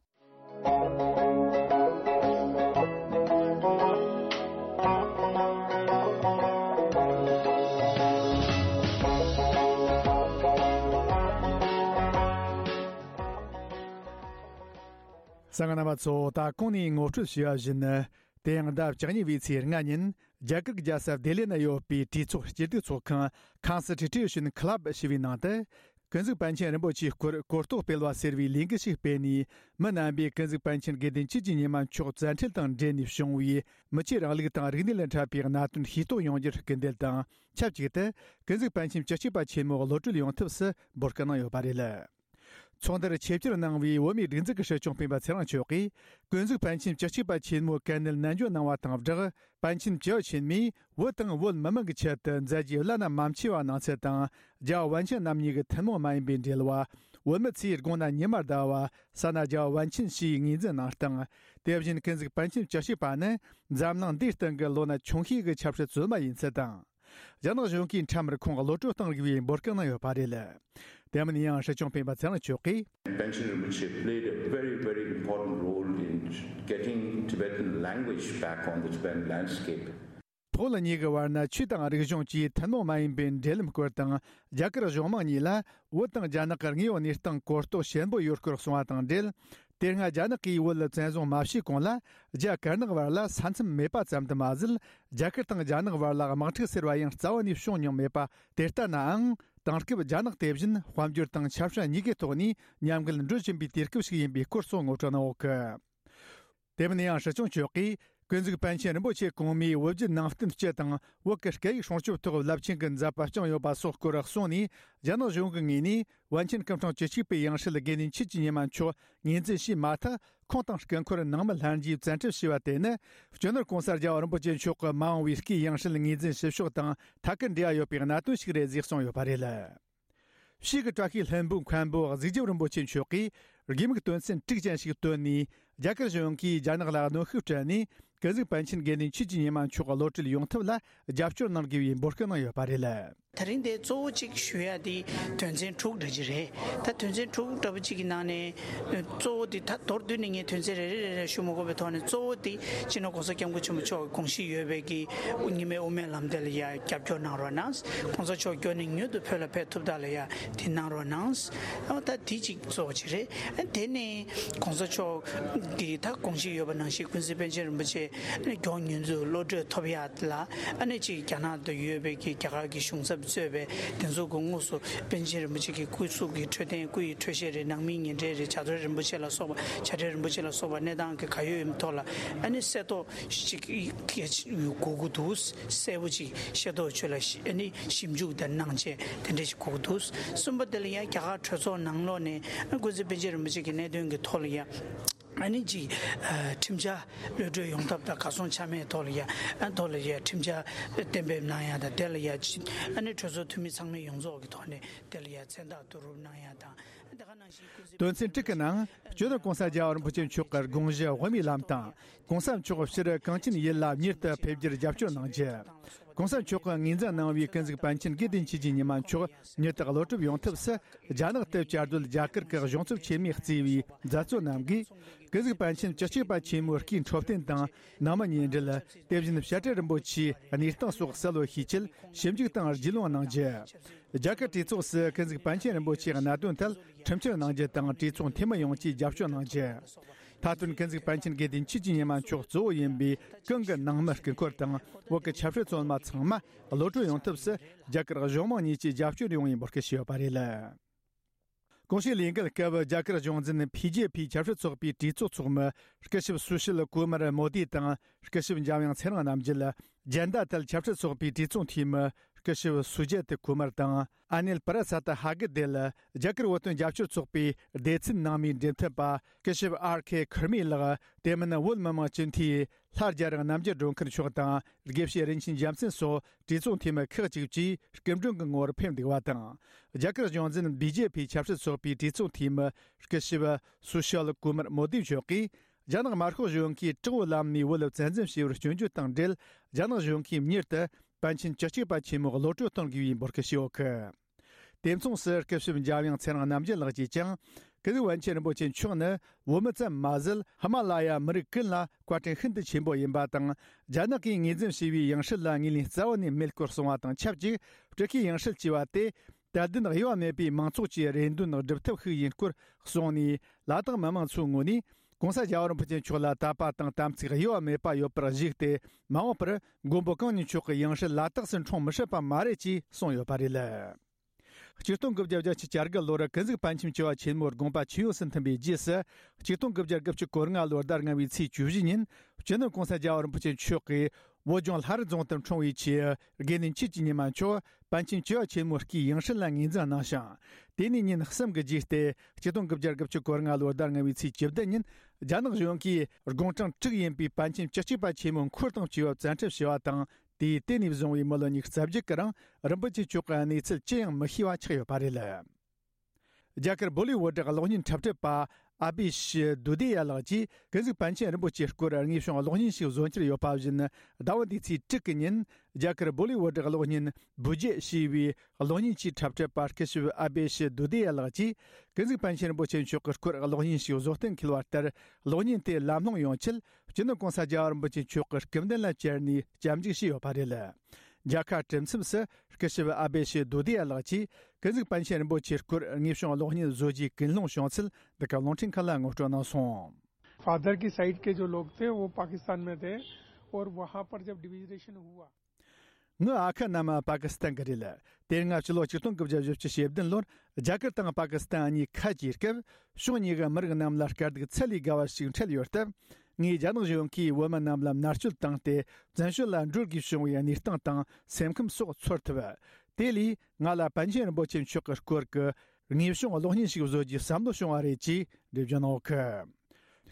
གསན་མཁན་རྣམ་པ་ཚོ། ད་གོང་ནས་ངོ་སྤྲོད་བྱས་པ་བཞིན། དེ་ཡང་ཟླ་བཅུ་གཉིས་པའི་ཚེས་ལྔ་ཉིན། རྒྱ་གར་གྱི་རྒྱལ་ས་ལྡི་ལི་ན་ཡོད་པའི་གྲོས་ཚོགས་སྐྱིད་སྡུག་ཚོགས་ཁང་Constitution Club ཞེས་པའི་ནང་དུ། ཀུན་གཟིགས་པཎ་ཆེན་རིན་པོ་ཆེའི་སྐོར་གོ་རྟོགས་སྤེལ་བ་ཟེར་བའི་ལས་འགུལ་ཞིག་སྤེལ་ནས། མི་རྣམ་པས་ཀུན་གཟིགས་པཎ་ཆེན་དགེ་འདུན་ཆོས་ཀྱི་ཉི་མ་མཆོག་བཙན་ཁྲིད་དང་འབྲེལ་ནས་བྱུང་བའི་མི་ཆོས་རིང་ལུགས་དང་རིག་གནས་ལ་འཕྲད་པའི་གནད་དོན་ཤེས་རྟོགས་ཡོང་རྒྱུར་སྐུལ་འདེད་དང་། ཆབས་ཅིག་ཏུ་ཀུན་གཟིགས་པཎ་ཆེན་བཅུ་གཅིག་པ་ཆེན་མོ་གློད་གྲོལ་ཡོང་ཐབས་སུ་འབོད་སྐུལ་གནང་ཡོད་པ་རེད། ཚོགས་འདུར་ཆེད་བཅར་གནང་བའི་བོད་མིའི་སྒྲིག་འཛུགས་ཀྱི་སྲིད་སྐྱོང་སྤེན་པ་ཚེ་རིང་མཆོག་གིས། ཀུན་གཟིགས་པཎ་ཆེན་བཅུ་གཅིག་པ་ཆེན་མོའི་དཀའ་གནད་ནན་བརྗོད་གནང་བ་དང་སྦྲགས། པཎ་ཆེན་བཅུ་པ་ཆེན་མོས་བོད་དང་བོད་མི་མང་གི་ཆེད་དུ་མཛད་རྗེས་བླ་ན་མ་མཆིས་པ་གནང་ཚུལ་དང་། རྒྱལ་བ་པཎ་ཆེན་རྣམ་གཉིས་ཀྱི་ཐུན་མོང་མ་ཡིན་པའི་འབྲེལ་བ། བོད་མི་ཚོས་དགོངས་ན་ཉི་མ་ཟླ་བ། བསམ་ན་རྒྱལ་བ་པཎ་ཆེན་ཞེས་ངོས་འཛིན་གནང་སྟངས། དེ་བཞིན་ཀུན་གཟིགས་པཎ་ཆེན་བཅུ་གཅིག་པ་ནི་འཛམ་གླིང་འདིའི་སྟེང་གི་ལོ་ན་ཆུང་ཤོས་ཀྱི་ཆབ་སྲིད་བཙུན་མ་ཡིན་ཚུལ་དང་། རྒྱ་ནག་གཞུང་གིས་ཁྲིམས་ར་ཁོང་གློད་གྲོལ་གཏོང་དགོས་པའི་འབོད་སྐུལ་གནང་ཡོད་པ་རེད། དེ་མིན་ཡང་སྲིད་སྐྱོང་སྤེན་པ་ཚེ་རིང་མཆོག་གིས། Panchen Rinpoche played a very, very important role in getting Tibetan language back on the Tibetan landscape. བོད་གཉིས་ཀྱི་བར་ན་ཆོས་དང་རིག་གཞུང་བཅས་ཐུན་མོང་མ་ཡིན་པའི་འབྲེལ་ལམ་སྐོར་དང་། རྒྱ་གར་གཞུང་མང་གཉིས་ལ་བོད་དང་རྒྱ་ནག་གི་དངོས་ཡོད་གནས་སྟངས་གོ་རྟོགས་ཞན་པོ་ཡོད་སྐོར་གསུངས་པ་དང་འབྲེལ། དེ་སྔ་རྒྱ་ནག་གིས་བོད་ལ་བཙན་བཟུང་མ་བྱས་གོང་ལ། རྒྱ་དཀར་ནག་བར་ལ་ས་མཚམས་མེད་པ་ཙམ་དུ་མ་ཟད། རྒྱ་གར་དང་རྒྱ་ནག་བར་ལ་དམག་འཁྲུག་ཟེར་བ་ཡང་རྩ་བ་ནས་བྱུང་མྱོང་མེད་པ་དེ་ལྟ་ནའང་། དེང་སྐབས་རྒྱ་ནག་དེ་བཞིན་དཔལ་འབྱོར་དང་ཆབ་སྲིད་གཉིས་ཀའི་ཐོག་ནས་མཉམ་འགུལ་འགྲོ་བཞིན་པའི་དུས་སྐབས་ཤིག་ཡིན་པའི་སྐོར་སོགས་ངོ་སྤྲོད་གནང་ཡོད་སྐད། དེ་མིན་ཡང་སྲིད་སྐྱོང་མཆོག་གིས་ཀུན་གཟིགས་པཎ་ཆེན་རིན་པོ་ཆེ་གོང་མའི་བོད་བརྒྱུད་ནང་བསྟན་སྤྱི་དང་བོད་ཀྱི་སྐད་ཡིག་སྲུང་སྐྱོབ་ཐོག་རླབས་ཆེན་གྱི་མཛད་པ་བསྐྱངས་ཡོད་པ་སོགས་སྐོར་གསུངས་ནས། རྒྱ་ནག་གཞུང་གི་ངོས་ནས་པཎ་ཆེན་སྐུ་ཕྲེང་བཅུ་གཅིག་པའི་ཡང་སྲིད་དགེ་འདུན་ཆོས་ཀྱི་ཉི་མ་མཆོག་ངོས་འཛིན་བྱས་མ་ཐག་ཁོང་དང་སྐུ་འཁོར་ནང་མི་ལྷན་རྒྱས་བཙན་ཁྲིད་བྱས་པ་དེ་ནི། སྤྱི་ནོར་༸གོང་ས་༸རྒྱལ་བ་རིན་པོ་ཆེ་མཆོག་གི་མ་འོངས་པའི་སྐུའི་ཡང་སྲིད་ངོས་འཛིན་བྱེད་ཕྱོགས་དང་ཐད་ཀར་འབྲེལ་བ་ཡོད་པའི་གནད་དོན་ཞིག་རེད་ཅེས་གསུངས་ཡོད་པ་རེད། གཤིས་ཀྱི་བཀྲ་ཤིས་ལྷུན་པོའི་མཁན་པོ་གཟུགས་རྒྱབ་རིན་པོ་ཆེ་མཆོག་གིས་དགོས་དམིགས་དོན་ཚན་དྲུག་ཅན་ཞིག་བཏོན་ནས། རྒྱ་གར་གཞུང་གིས་རྒྱ་ནག་ལ་གནོན་ཤུགས་སྤྲད་ནས། ཀུན་གཟིགས་པཎ་ཆེན་དགེ་འདུན་ཆོས་ཀྱི་ཉི་མ་མཆོག་གློད་གྲོལ་ཡོང་ཐབས་ལ་རྒྱབ་སྐྱོར་གནང་དགོས་པའི་འབོད་སྐུལ་གནང་ཡོད་པ་རེད། དེ་རིང་འདིར་གཙོ་བོ་གཅིག་ཞུ་ཡ་དེ་དོན་ཚན་དྲུག་འདྲ་ཅིག་རེད། ད་དོན་ཚན་དྲུག་འདྲ་པོ་གཅིག་གི་ནང་ནས་གཙོ་བོ་དེ། ད་མདོར་བསྡུས་ནས་ངས་དོན་ཚན་རེ་རེ་རེ་རེ་ཞུ་མ་དགོས་པའི་ཐོག་ནས། གཙོ་བོ་དེ་སྤྱི་ནོར་༸གོང་ས་༸སྐྱབས་མགོན་ཆེན་པོ་མཆོག་གི་དགོངས་གཞི་ཡོད་པའི་གི་རྙིང་མའི་དབུ་མའི་ལམ་དེ་ལ་ཡ་རྒྱབ་སྐྱོར་གནང་རོགས་གནང་། ༸གོང་ས་མཆོག་མགྱོགས་ནས་མྱུར་དུ་བོད་ལ་ཕེབས་ཐུབ་ཐབས་ལ་ཡ་དེ་གནང་རོགས་གནང་། ཨ། ད་དེ་གཅིག་གཙོ་བོ་གཅིག་རེད། ཨ། དེ་ནས་༸གོང་ས་མཆོག་གི་ད་དགོངས་གཞི་ཡོད་པ་ནང་བཞིན་ཀུན་གཟིགས་པཎ་ཆེན་རིན་པོ་ཆེ་མགྱོགས་མྱུར་དུ་གློད་གྲོལ་ཐོབ་ཡ་ལ། ཨ་ནི་གཅིག་རྒྱ་ནག་ཏུ་ཡོད་པའི་གི་རྒྱ་གར་གྱི་གཞུང་ཚབ་གཙོས་པའི་དེ་ཚོ་གི་དངོས་སུ་པཎ་ཆེན་རིན་པོ་ཆེ་གི་སྐུ་གཟུགས་ཀྱི་འཕྲོད་བསྟེན། སྐུ་ཡི་འཕྲོད་བཞེས་རེད། ནང་མིའི་ཉེ་འབྲེལ་རེད། བྱ་དོར་རིན་པོ་ཆེ་ལ་སོགས་པ། བྱ་བྲལ་རིན་པོ་ཆེ་ལ་སོགས་པ་གནས་སྟངས་ཀྱི་ག་ཡོད་ཡོད་མེད་ཐོག་ལ། ཨ་ནི་གསལ་རྟོགས་ཅིག་དགོས་ཀྱི་འདུག་གསལ་པོ་ཅིག་ཤེས་རྟོགས་ཆེད་ལ་ཞི། ཨ་ནི་ཞིབ་འཇུག་དང་གནང་ཆེད་དེ་འདྲ་ཞིག་དགོས་ཀྱི་འདུག་གསུམ་པ་དེ་ལ་ཡང་རྒྱ་གར་གྲོས་ཚོགས་ནང་ལོགས་ནས། ཨ། ཀུན་གཟིགས་པཎ་ཆེན་རིན་པོ་ཆེ་གི་གནད་དོན་གྱི་ཐོག་ལ་ཡང་ ཨ་ནི་ཅིག་ཁྲིམས་འཆར་གློད་གྲོལ་ཡོང་ཐབས་དང་། གར་སོང་ཆ་མེད་ཐོག་ལ་ཡ་ཐོག་ལ་ཡ་ཁྲིམས་འཆར་གཏན་འབེབས་གནང་ཡ་དང་། དེ་ལ་ཡ་ཅིག་ཨ་ནི་གྲོས་ཚོགས་འཐུས་མི་ཚང་མས་ཡོངས་རྫོགས་ཀྱི་ཐོག་ནས་དེ་ལ་ཡ་མཚན་རྟགས་བསྡུ་རུབ་གནང་ཡ་དང་། དེ་ག་ནང་བཞིན་སྐུ་གཟུགས། དོན་ཚན་དྲུག་གི་ནང་། སྤྱི་ནོར་༸གོང་ས་༸རྒྱལ་བ་རིན་པོ་ཆེ་མཆོག་གི་དགོངས་གཞི་དབུ་མའི་ལམ་དང་། ༸གོང་ས་མཆོག་སྤྱིར་གངས་ཅན་ཡུལ་ལ་མྱུར་དུ་ཕེབས་རྒྱུར་རྒྱབ་སྐྱོར་གནང་རྒྱུ། ༸གོང་ས་མཆོག་གིས་ངོས་འཛིན་གནང་བའི་ཀུན་གཟིགས་པཎ་ཆེན་དགེ་ལྡན་ཆོས་ཀྱི་ཉི་མ་མཆོག་མྱུར་དུ་གློད་གྲོལ་ཡོང་ཐབས་སུ། རྒྱ་ནག་ཏུ་བཅའ་སྡོད་རྒྱ་གར་གྱི་གཞུང་ཚབ་ཆེན་མོས་གཙོས་པའི་མཛད་གཙོ་རྣམས་ཀྱིས། ཀུན་གཟིགས་པཎ་ཆེན་བཅུ་གཅིག་པ་ཆེན་མོའི་སྐུའི་འཕྲོད་བསྟེན་དང་། ནང་མི་ཉེ་འབྲེལ། དེ་བཞིན་བཤད་གྲྭ་རིན་པོ་ཆེའི་གནས་སྟངས་སོགས་གསལ་བོ་ཤེས་ཆེད་ཞིབ་འཇུག་དང་རྒྱུས་ལོན་གནང་རྒྱུ། རྒྱ་གར་གྲོས་ཚོགས་སུ་ཀུན་གཟིགས་པཎ་ཆེན་རིན་པོ་ཆེའི་གནད་དོན་ཐད་ཁྲིམས་བཅར་གནང་རྒྱུ་དང་། གྲོས་ཚོགས་འཐུས་མི་ཡོངས་ཀྱིས་རྒྱབ་སྐྱོར་གནང་རྒྱུ། མཐའ་དོན་ཀུན་གཟིགས་པཎ་ཆེན་དགེ་ལྡན་ཆོས་ཀྱི་ཉི་མ་མཆོག་གཙོ་བོ་ཡིན་པའི་གང་གི་ནང་མི་སྐུ་འཁོར་དང་། བོད་ཀྱི་ཆབ་སྲིད་བཙོན་མ་ཚང་མ་གློད་གྲོལ་ཡོང་ཐབས་སུ་རྒྱ་གར་གཞུང་མང་གཉིས་ཀྱིས་རྒྱབ་སྐྱོར་ཡོང་བའི་འབོད་སྐུལ་ཞུས་ཡོད་པ་རེད། གོང་ཞུས་ལས་འགུལ་སྐབས་རྒྱ་གར་གཞུང་འཛིན་བྷི་ཇེ་ཕི་ཆབ་སྲིད་ཚོགས་པའི་གྲོས་ཚོགས་ཚོགས་མི་སྐུ་ཞབས་སུ་ཤིལ་ཀུ་མར་མོ་དི་དང་། སྐུ་ཞབས་འཇམ་དབྱངས་ཚེ་རིང་རྣམ་རྒྱལ། ཇན་ད་དལ་ཆབ་སྲིད་ཚོགས་པའི་གྲོས་ཚོགས་འཐུས་མི་སྐུ་ཞབས་སུ་ཇེ་ཏི་ཀུ་མར་དང་། ཨ་ནིལ་པ་ར་སད་ཧ་གི་དེ་ལ་རྒྱ་གར་བོད་དོན་རྒྱབ་སྐྱོར་ཚོགས་པའི་སྡེ་ཚན་ནང་མིའི་འབྲེལ་མཐུད་པ་སྐུ་ཞབས་ཨར་ཁེ་ཁུར་མི་ལགས། དེ་མིན་བོད་མི་མང་སྤྱི་འཐུས་ལྷ་རྒྱ་རི་རྣམ་རྒྱལ་སྒྲོལ་མཁར་མཆོག་དང་། དགེ་བཤེས་རིན་ཆེན་རྒྱལ་མཚན་སོགས་གྲོས་ཚོགས་འཐུས་མི་ཁག་ཅིག་བཅས་སྐུ་མགྲོན་གྱི་ངོ་བོར་ཕེབས་འདུག་པ་དང་། རྒྱ་གར་གཞུང་འཛིན་བྷི་ཇེ་ཕི་ཆབ་སྲིད་ཚོགས་པའི་གྲོས་ཚོགས་འཐུས་མི་སྐུ་ཞབས་སུ་ཤལ་ཀུ་མར་མོ་དི་མཆོག་གིས། རྒྱ་ནག་དམར་ཤོག་གཞུང་གིས་དྲག་པོའི་ལམ་ནས་བོད་ལ་བཙན་འཛུལ་བྱས་པར་སྐྱོན་བརྗོད་དང་འབྲེལ། རྒྱ་ནག་གཞུང་གིས་མྱུར་དུ་པཎ་ཆེན་བཅུ་གཅིག་པ་ཆེན་མོ་གློད་གྲོལ་གཏོང་དགོས་པའི་འབོད་སྐུལ་ཞུས་ཡོད་གི། དེ་མཚུངས་སུ་སྐུ་ཞབས་འཇམ་དབྱངས་ཚེ་རིང་རྣམ་རྒྱལ་ལགས་ཀྱིས་ཀྱང་། ཀུན་གཟིགས་པཎ་ཆེན་རིན་པོ་ཆེ་མཆོག་ནི་བོད་མི་ཙམ་མ་ཟད། ཧི་མ་ལ་ཡ་མི་རིགས་ཀུན་ལ་བཀའ་དྲིན་ཤིན་ཏུ་ཆེན་པོ་ཡིན་པ་དང་། རྒྱ་ནག་གིས་ངོས་འཛིན་བྱས་པའི་ཡང་སྲིད་ལ་ངོས་ལེན་རྩ་བ་ནས་མེད་སྐོར་གསུངས་པ་དང་ཆབས་ཅིག་སྤྲུལ་སྐུའི་ཡང་སྲིད་ཅེས་པ་དེ། དད་ལྡན་དབྱེ་བ་མེད་པའི་མང་ཚོགས་ཀྱི་རེ་འདུན་སྒྲུབ་ཐབས་ཤིག་ཡིན་སྐོར་གསུངས་ནས། ལ་དྭགས་མི་མང་ཚོའི་ངོས་ནས། ྋགོང་ས་རྒྱལ་བ་རིན་པོ་ཆེ་མཆོག་ལ་དད་པ་དང་དམ་ཚིག་དབྱེ་བ་མེད་པ་ཡོད་པར་གཞིགས་ཏེ། མ་འོངས་པར་མགོན་པོ་གང་ཉིད་མཆོག་གི་ཡང་སྲིད་ལ་དྭགས་སུ་འཁྲུངས་མི་སྲིད་པ་མ་རེད་ཅེས་གསུངས་ཡོད་པ་རེད། ཆིག་སྟོང་དགུ་བརྒྱ་བརྒྱད་ཅུ་གྱ་དགུ་ལོར་ཀུན་གཟིགས་པཎ་ཆེན་བཅུ་བ་ཆེན་མོའི་དགོངས་པ་ཇི་ཡོངས་སུ་མཐུན་པའི་རྗེས་སུ། ཆིག་སྟོང་དགུ་བརྒྱ་དགུ་བཅུ་གོ་ལྔ་ལོའི་ཟླ་ལྔ་པའི་ཚེས་བཅུ་བཞི་ཉིན། སྤྱི་ནོར་༸གོང་ས་རྒྱལ་བ་རིན་པོ་ཆེ་མཆོག་གིས། བོད་ལྗོངས་ལྷ་རི་རྫོང་དུ་འཁྲུངས་པའི་ཆེད། དགེ་འདུན་ཆོས་ཀྱི་ཉི་མ་མཆོག་པཎ་ཆེན་བཅུ་བ་ཆེན་མོའི་སྐུའི་ཡང་སྲིད་ལ་ངོས་འཛིན་གནང་ཞིང་། དེ་ནས་ཉིན་གསུམ་གྱི་རྗེས་ཏེ། ཆིག་སྟོང་དགུ་བརྒྱ་དགུ་བཅུ་གོ་ལྔ་ལོའི་ཟླ་ལྔ་པའི་ཚེས་བཅུ་བདུན་ཉིན། རྒྱ་ནག་གཞུང་གིས་དགུང་གྲངས་དྲུག་ཡིན་པའི་པཎ་ཆེན་བཅུ་གཅིག་པ་ཆེན་མོ་འཁོར་དང་བཅས་པ་བཙན་ཁྲིད་བྱས་པ་དང་། དེའི་དེ་ནས་བཟུང་བའི་མི་ལོ་ཉི་ཤུ་རྩ་བརྒྱད་ཀྱི་རིང་། རིན་པོ་ཆེ་མཆོག་གི་གནས་ཚུལ་ཅི་ཡང་མི་ཤེས་པ་ཆགས་ཡོད་པ་རེད། རྒྱ་གར་བོ་ལི་ཝུ་ཌི་གློག་བརྙན་འཁྲབ་ཁྲིད་པ་ཨ་བི་ཤི་དུ་དི་ཡ་ལགས་ཀྱིས། ཀུན་གཟིགས་པཎ་ཆེན་རིན་པོ་ཆེའི་སྐོར་དངོས་བྱུང་གློག་བརྙན་ཞིག་བཟོ་འཆར་ཡོད་པ་བཞིན། ཟླ་བ་འདིའི་ཚེས་དྲུག་གི་ཉིན། རྒྱ་གར་བོ་ལི་ཝུ་ཌི་གློག་བརྙན་བུ་ཇེ་ཞེས་པའི་གློག་བརྙན་གྱི་འཁྲབ་ཁྲིད་པ་སྐུ་ཞབས་ཨ་བི་ཤི་དུ་དི་ཡ་ལགས་ཀྱིས། ཀུན་གཟིགས་པཎ་ཆེན་རིན་པོ་ཆེ་མཆོག་གི་སྐོར་གློག་བརྙན་ཞིག་བཟོ་གཏན་འཁེལ་བ་ལྟར། གློག་བརྙན་དེ་ལམ་ལྷོང་ཡོང་ཆེད། སྤྱི་ནོར་༸གོང་ས་རྒྱལ་བ་རིན་པོ་ཆེ་མཆོག་གི་སྐུ་མདུན་ལ་བཅར་ནས་སྐྱབས་འཇུག་བྱས་ཡོད་པ་རེད། མཇལ་ཁ་གྲུབ་མཚམས་སུ། སྐུ་ཞབས་ཨ་བེ་ཤི་དུ་དི་ཡ་ལགས་ཀྱིས། ཀུན་གཟིགས་པཎ་ཆེན་རིན་པོ་ཆེའི་སྐོར་དངོས་བྱུང་གློག་བརྙན་བཟོ་རྒྱུའི་ཀུན་སློང་བྱུང་ཚུལ། འདི་ག་རླུང་འཕྲིན་ཁང་ལ་ངོ་སྤྲོད་གནང་སོང་། फादर की साइड के जो लोग थे, वो पाकिस्तान में थे, और वहाँ पर जब डिवीजरेशन हुआ। ངའི་ཨ་ཁུ་རྣམས་པ་ཀི་སི་ཐན་གྱི་རེད། དེ་སྔ་ཕྱི་ལོ་ཆིག་སྟོང་དགུ་བརྒྱ་བཞི་བཅུ་ཞེ་བདུན་ལོར་རྒྱ་གར་དང་པ་ཀི་སི་ཐན་གཉིས་ཁ་གྱེས་སྐབས། ཕྱོགས་གཉིས་ཀྱི་མི་རིགས་རྣམས་ལ་དཀའ་སྡུག་ཚད་ལས་བརྒལ་བ་ཞིག་འཕྲད་ཡོད་སྟབས། ངས་རྒྱ་ནག་གཞུང་གིས་བོད་མི་རྣམས་ལ་མནར་གཅོད་བཏང་སྟེ། བཙན་བྱོལ་ལ་འགྲོ་དགོས་བྱུང་བའི་གནས་སྟངས་དང་སེམས་ཁམས་སོགས་ཚོར་ཐུབ། དེ་ལས་ང་ལ་པཎ་ཆེན་རིན་པོ་ཆེ་མཆོག་གི་སྐོར་གྱི་དངོས་བྱུང་གློག་བརྙན་ཞིག་བཟོ་རྒྱུའི་བསམ་བློ་བྱུང་བ་རེད་ཅེས་འགྲེལ་བརྗོད་གནང་ཡོད་གི།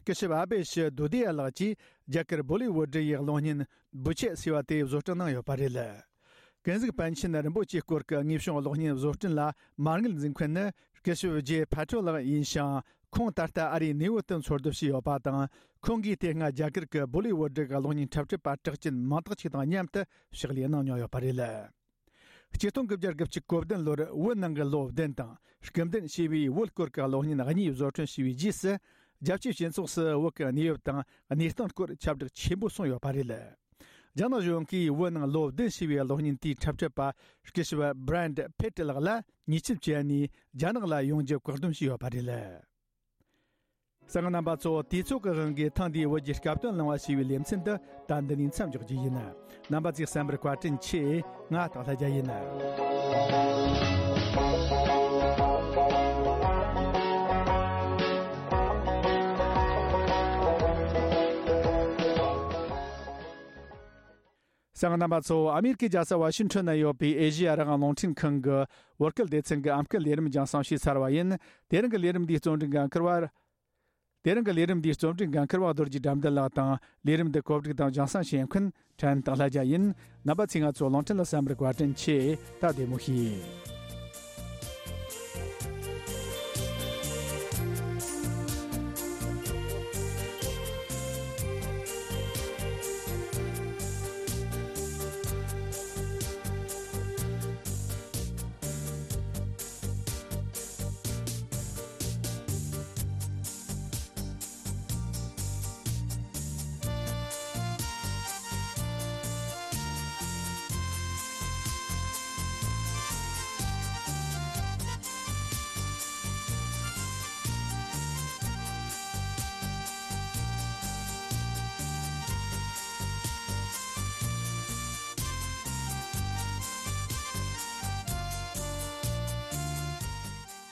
སྐུ་ཞབས་ཨ་བེ་ཤི་དུ་དི་ཡ་ལགས་ཀྱིས་རྒྱ་གར་བོ་ལི་ཝུ་ཌི་ཡི་གློག་བརྙན་བུ་ཆེ་ཟེར་བ་དེ་བཟོ་སྐྲུན་གནང་ཡོད་པ་རེད། ཀུན་གཟིགས་པཎ་ཆེན་རིན་པོ་ཆེའི་སྐོར་གྱི་དངོས་བྱུང་གློག་བརྙན་བཟོ་སྐྲུན་ལ་མ་དངུལ་འཛིན་མཁན་ནི་སྐུ་ཞབས་ཇེ་ཕ་ཁྲོ་ལགས་ཡིན་ཞིང་། ཁོང་ད་ལྟ་ཨ་རིའི་ནེའུ་ཡོག་ཏུ་འཚོ་སྡོད་བྱས་ཡོད་པ་དང་། ཁོང་གིས་དེ་སྔ་རྒྱ་གར་གྱི་བོ་ལི་ཝུ་ཌི་གི་གློག་བརྙན་འཁྲབ་ཁྲིད་པ་གྲགས་ཅན་མང་དག་ཅིག་དང་མཉམ་དུ་ཕྱག་ལས་གནང་མྱོང་ཡོད་པ་རེད། ཆིག་སྟོང་དགུ་བརྒྱ་དགུ་བཅུ་གོ་བདུན་ལོར་བོད་ནང་གི་ལོ་བདུན་དང་སྐུ་མདུན་ཞེས་པའི་བོད་སྐོར་གྱི་གློག་བརྙན་གཉིས་བཟོ་སྐྲུན་བྱས་པའི་རྗེས་སུ། རྒྱལ་སྤྱིའི་སྤྱི་ཚོགས་སུ་བོད་ཀྱི་གནས་བབ་དང་གནས་སྟངས་སྐོར་ཁྱབ་བསྒྲགས་ཆེན་པོ་སོང་ཡོད་པ་རེད། རྒྱ་ནག་གཞུང་གིས་བོད་ནང་ལོ་བདུན་ཞེས་པའི་གློག་བརྙན་དེའི་འཁྲབ་ཁྲིད་པ་སྐུ་ཞབས་བྷི་རན་ཌི་ཕེ་ཏི་ལགས་ལ་ཉེས་ཆད་བཅད་ནས་རྒྱ་ནག་ལ་ཡོང་རྒྱུ་བཀག་སྡོམ་བྱས་ཡོད་པ་རེད། གསན་མཁན་རྣམ་པ་ཚོ། དུས་ཚོད་ཀྱི་དབང་གིས་ཐེངས་འདིའི་བོད་ཀྱི་སྐབས་དོན་གླེང་བ་ཞེས་པའི་ལེ་ཚན་འདི་ད་འདི་ནས་མཚམས་འཇོག་རྒྱུ་ཡིན། རྣམ་པ་ཚོས་གསན་པར་བཀའ་དྲིན་ཆེ། ང་སྟག་ལྷ་རྒྱལ་ཡིན། གསན་མཁན་རྣམ་པ་ཚོ། ཨ་མེ་རི་ཀའི་རྒྱལ་ས་ཝ་ཤིང་ཊོན་ན་ཡོད་པའི་ཨེ་ཤེ་ཡ་རང་དབང་རླུང་འཕྲིན་ཁང་གི་བོད་སྐད་སྡེ་ཚན་གྱི་ཨམ་སྐད་ལས་རིམ་རྒྱང་སྲིང་བྱས་ཚར་བ་ཡིན། དེ་རིང་གི་ལས་རིམ་འདིའི་རྩོམ་སྒྲིག་འགན་འཁུར་བ། དེ་རིང་གི་ལས་རིམ་འདིའི་རྩོམ་སྒྲིག་འགན་འཁུར་བ་རྡོ་རྗེ་དགྲ་འདུལ་ལགས་དང་། ལས་རིམ་འདི་གོ་སྒྲིག་དང་རྒྱང་སྲིང་བྱེད་མཁན་ཕྲན་སྟག་ལྷ་རྒྱལ་ཡིན། རྣམ་པ་ཚོས་ང་ཚོ་གླིང་ཕྲན་ལ་གསན་པར་བཀའ་དྲིན་ཆེ། ད་བདེ་མོ་བྱོས།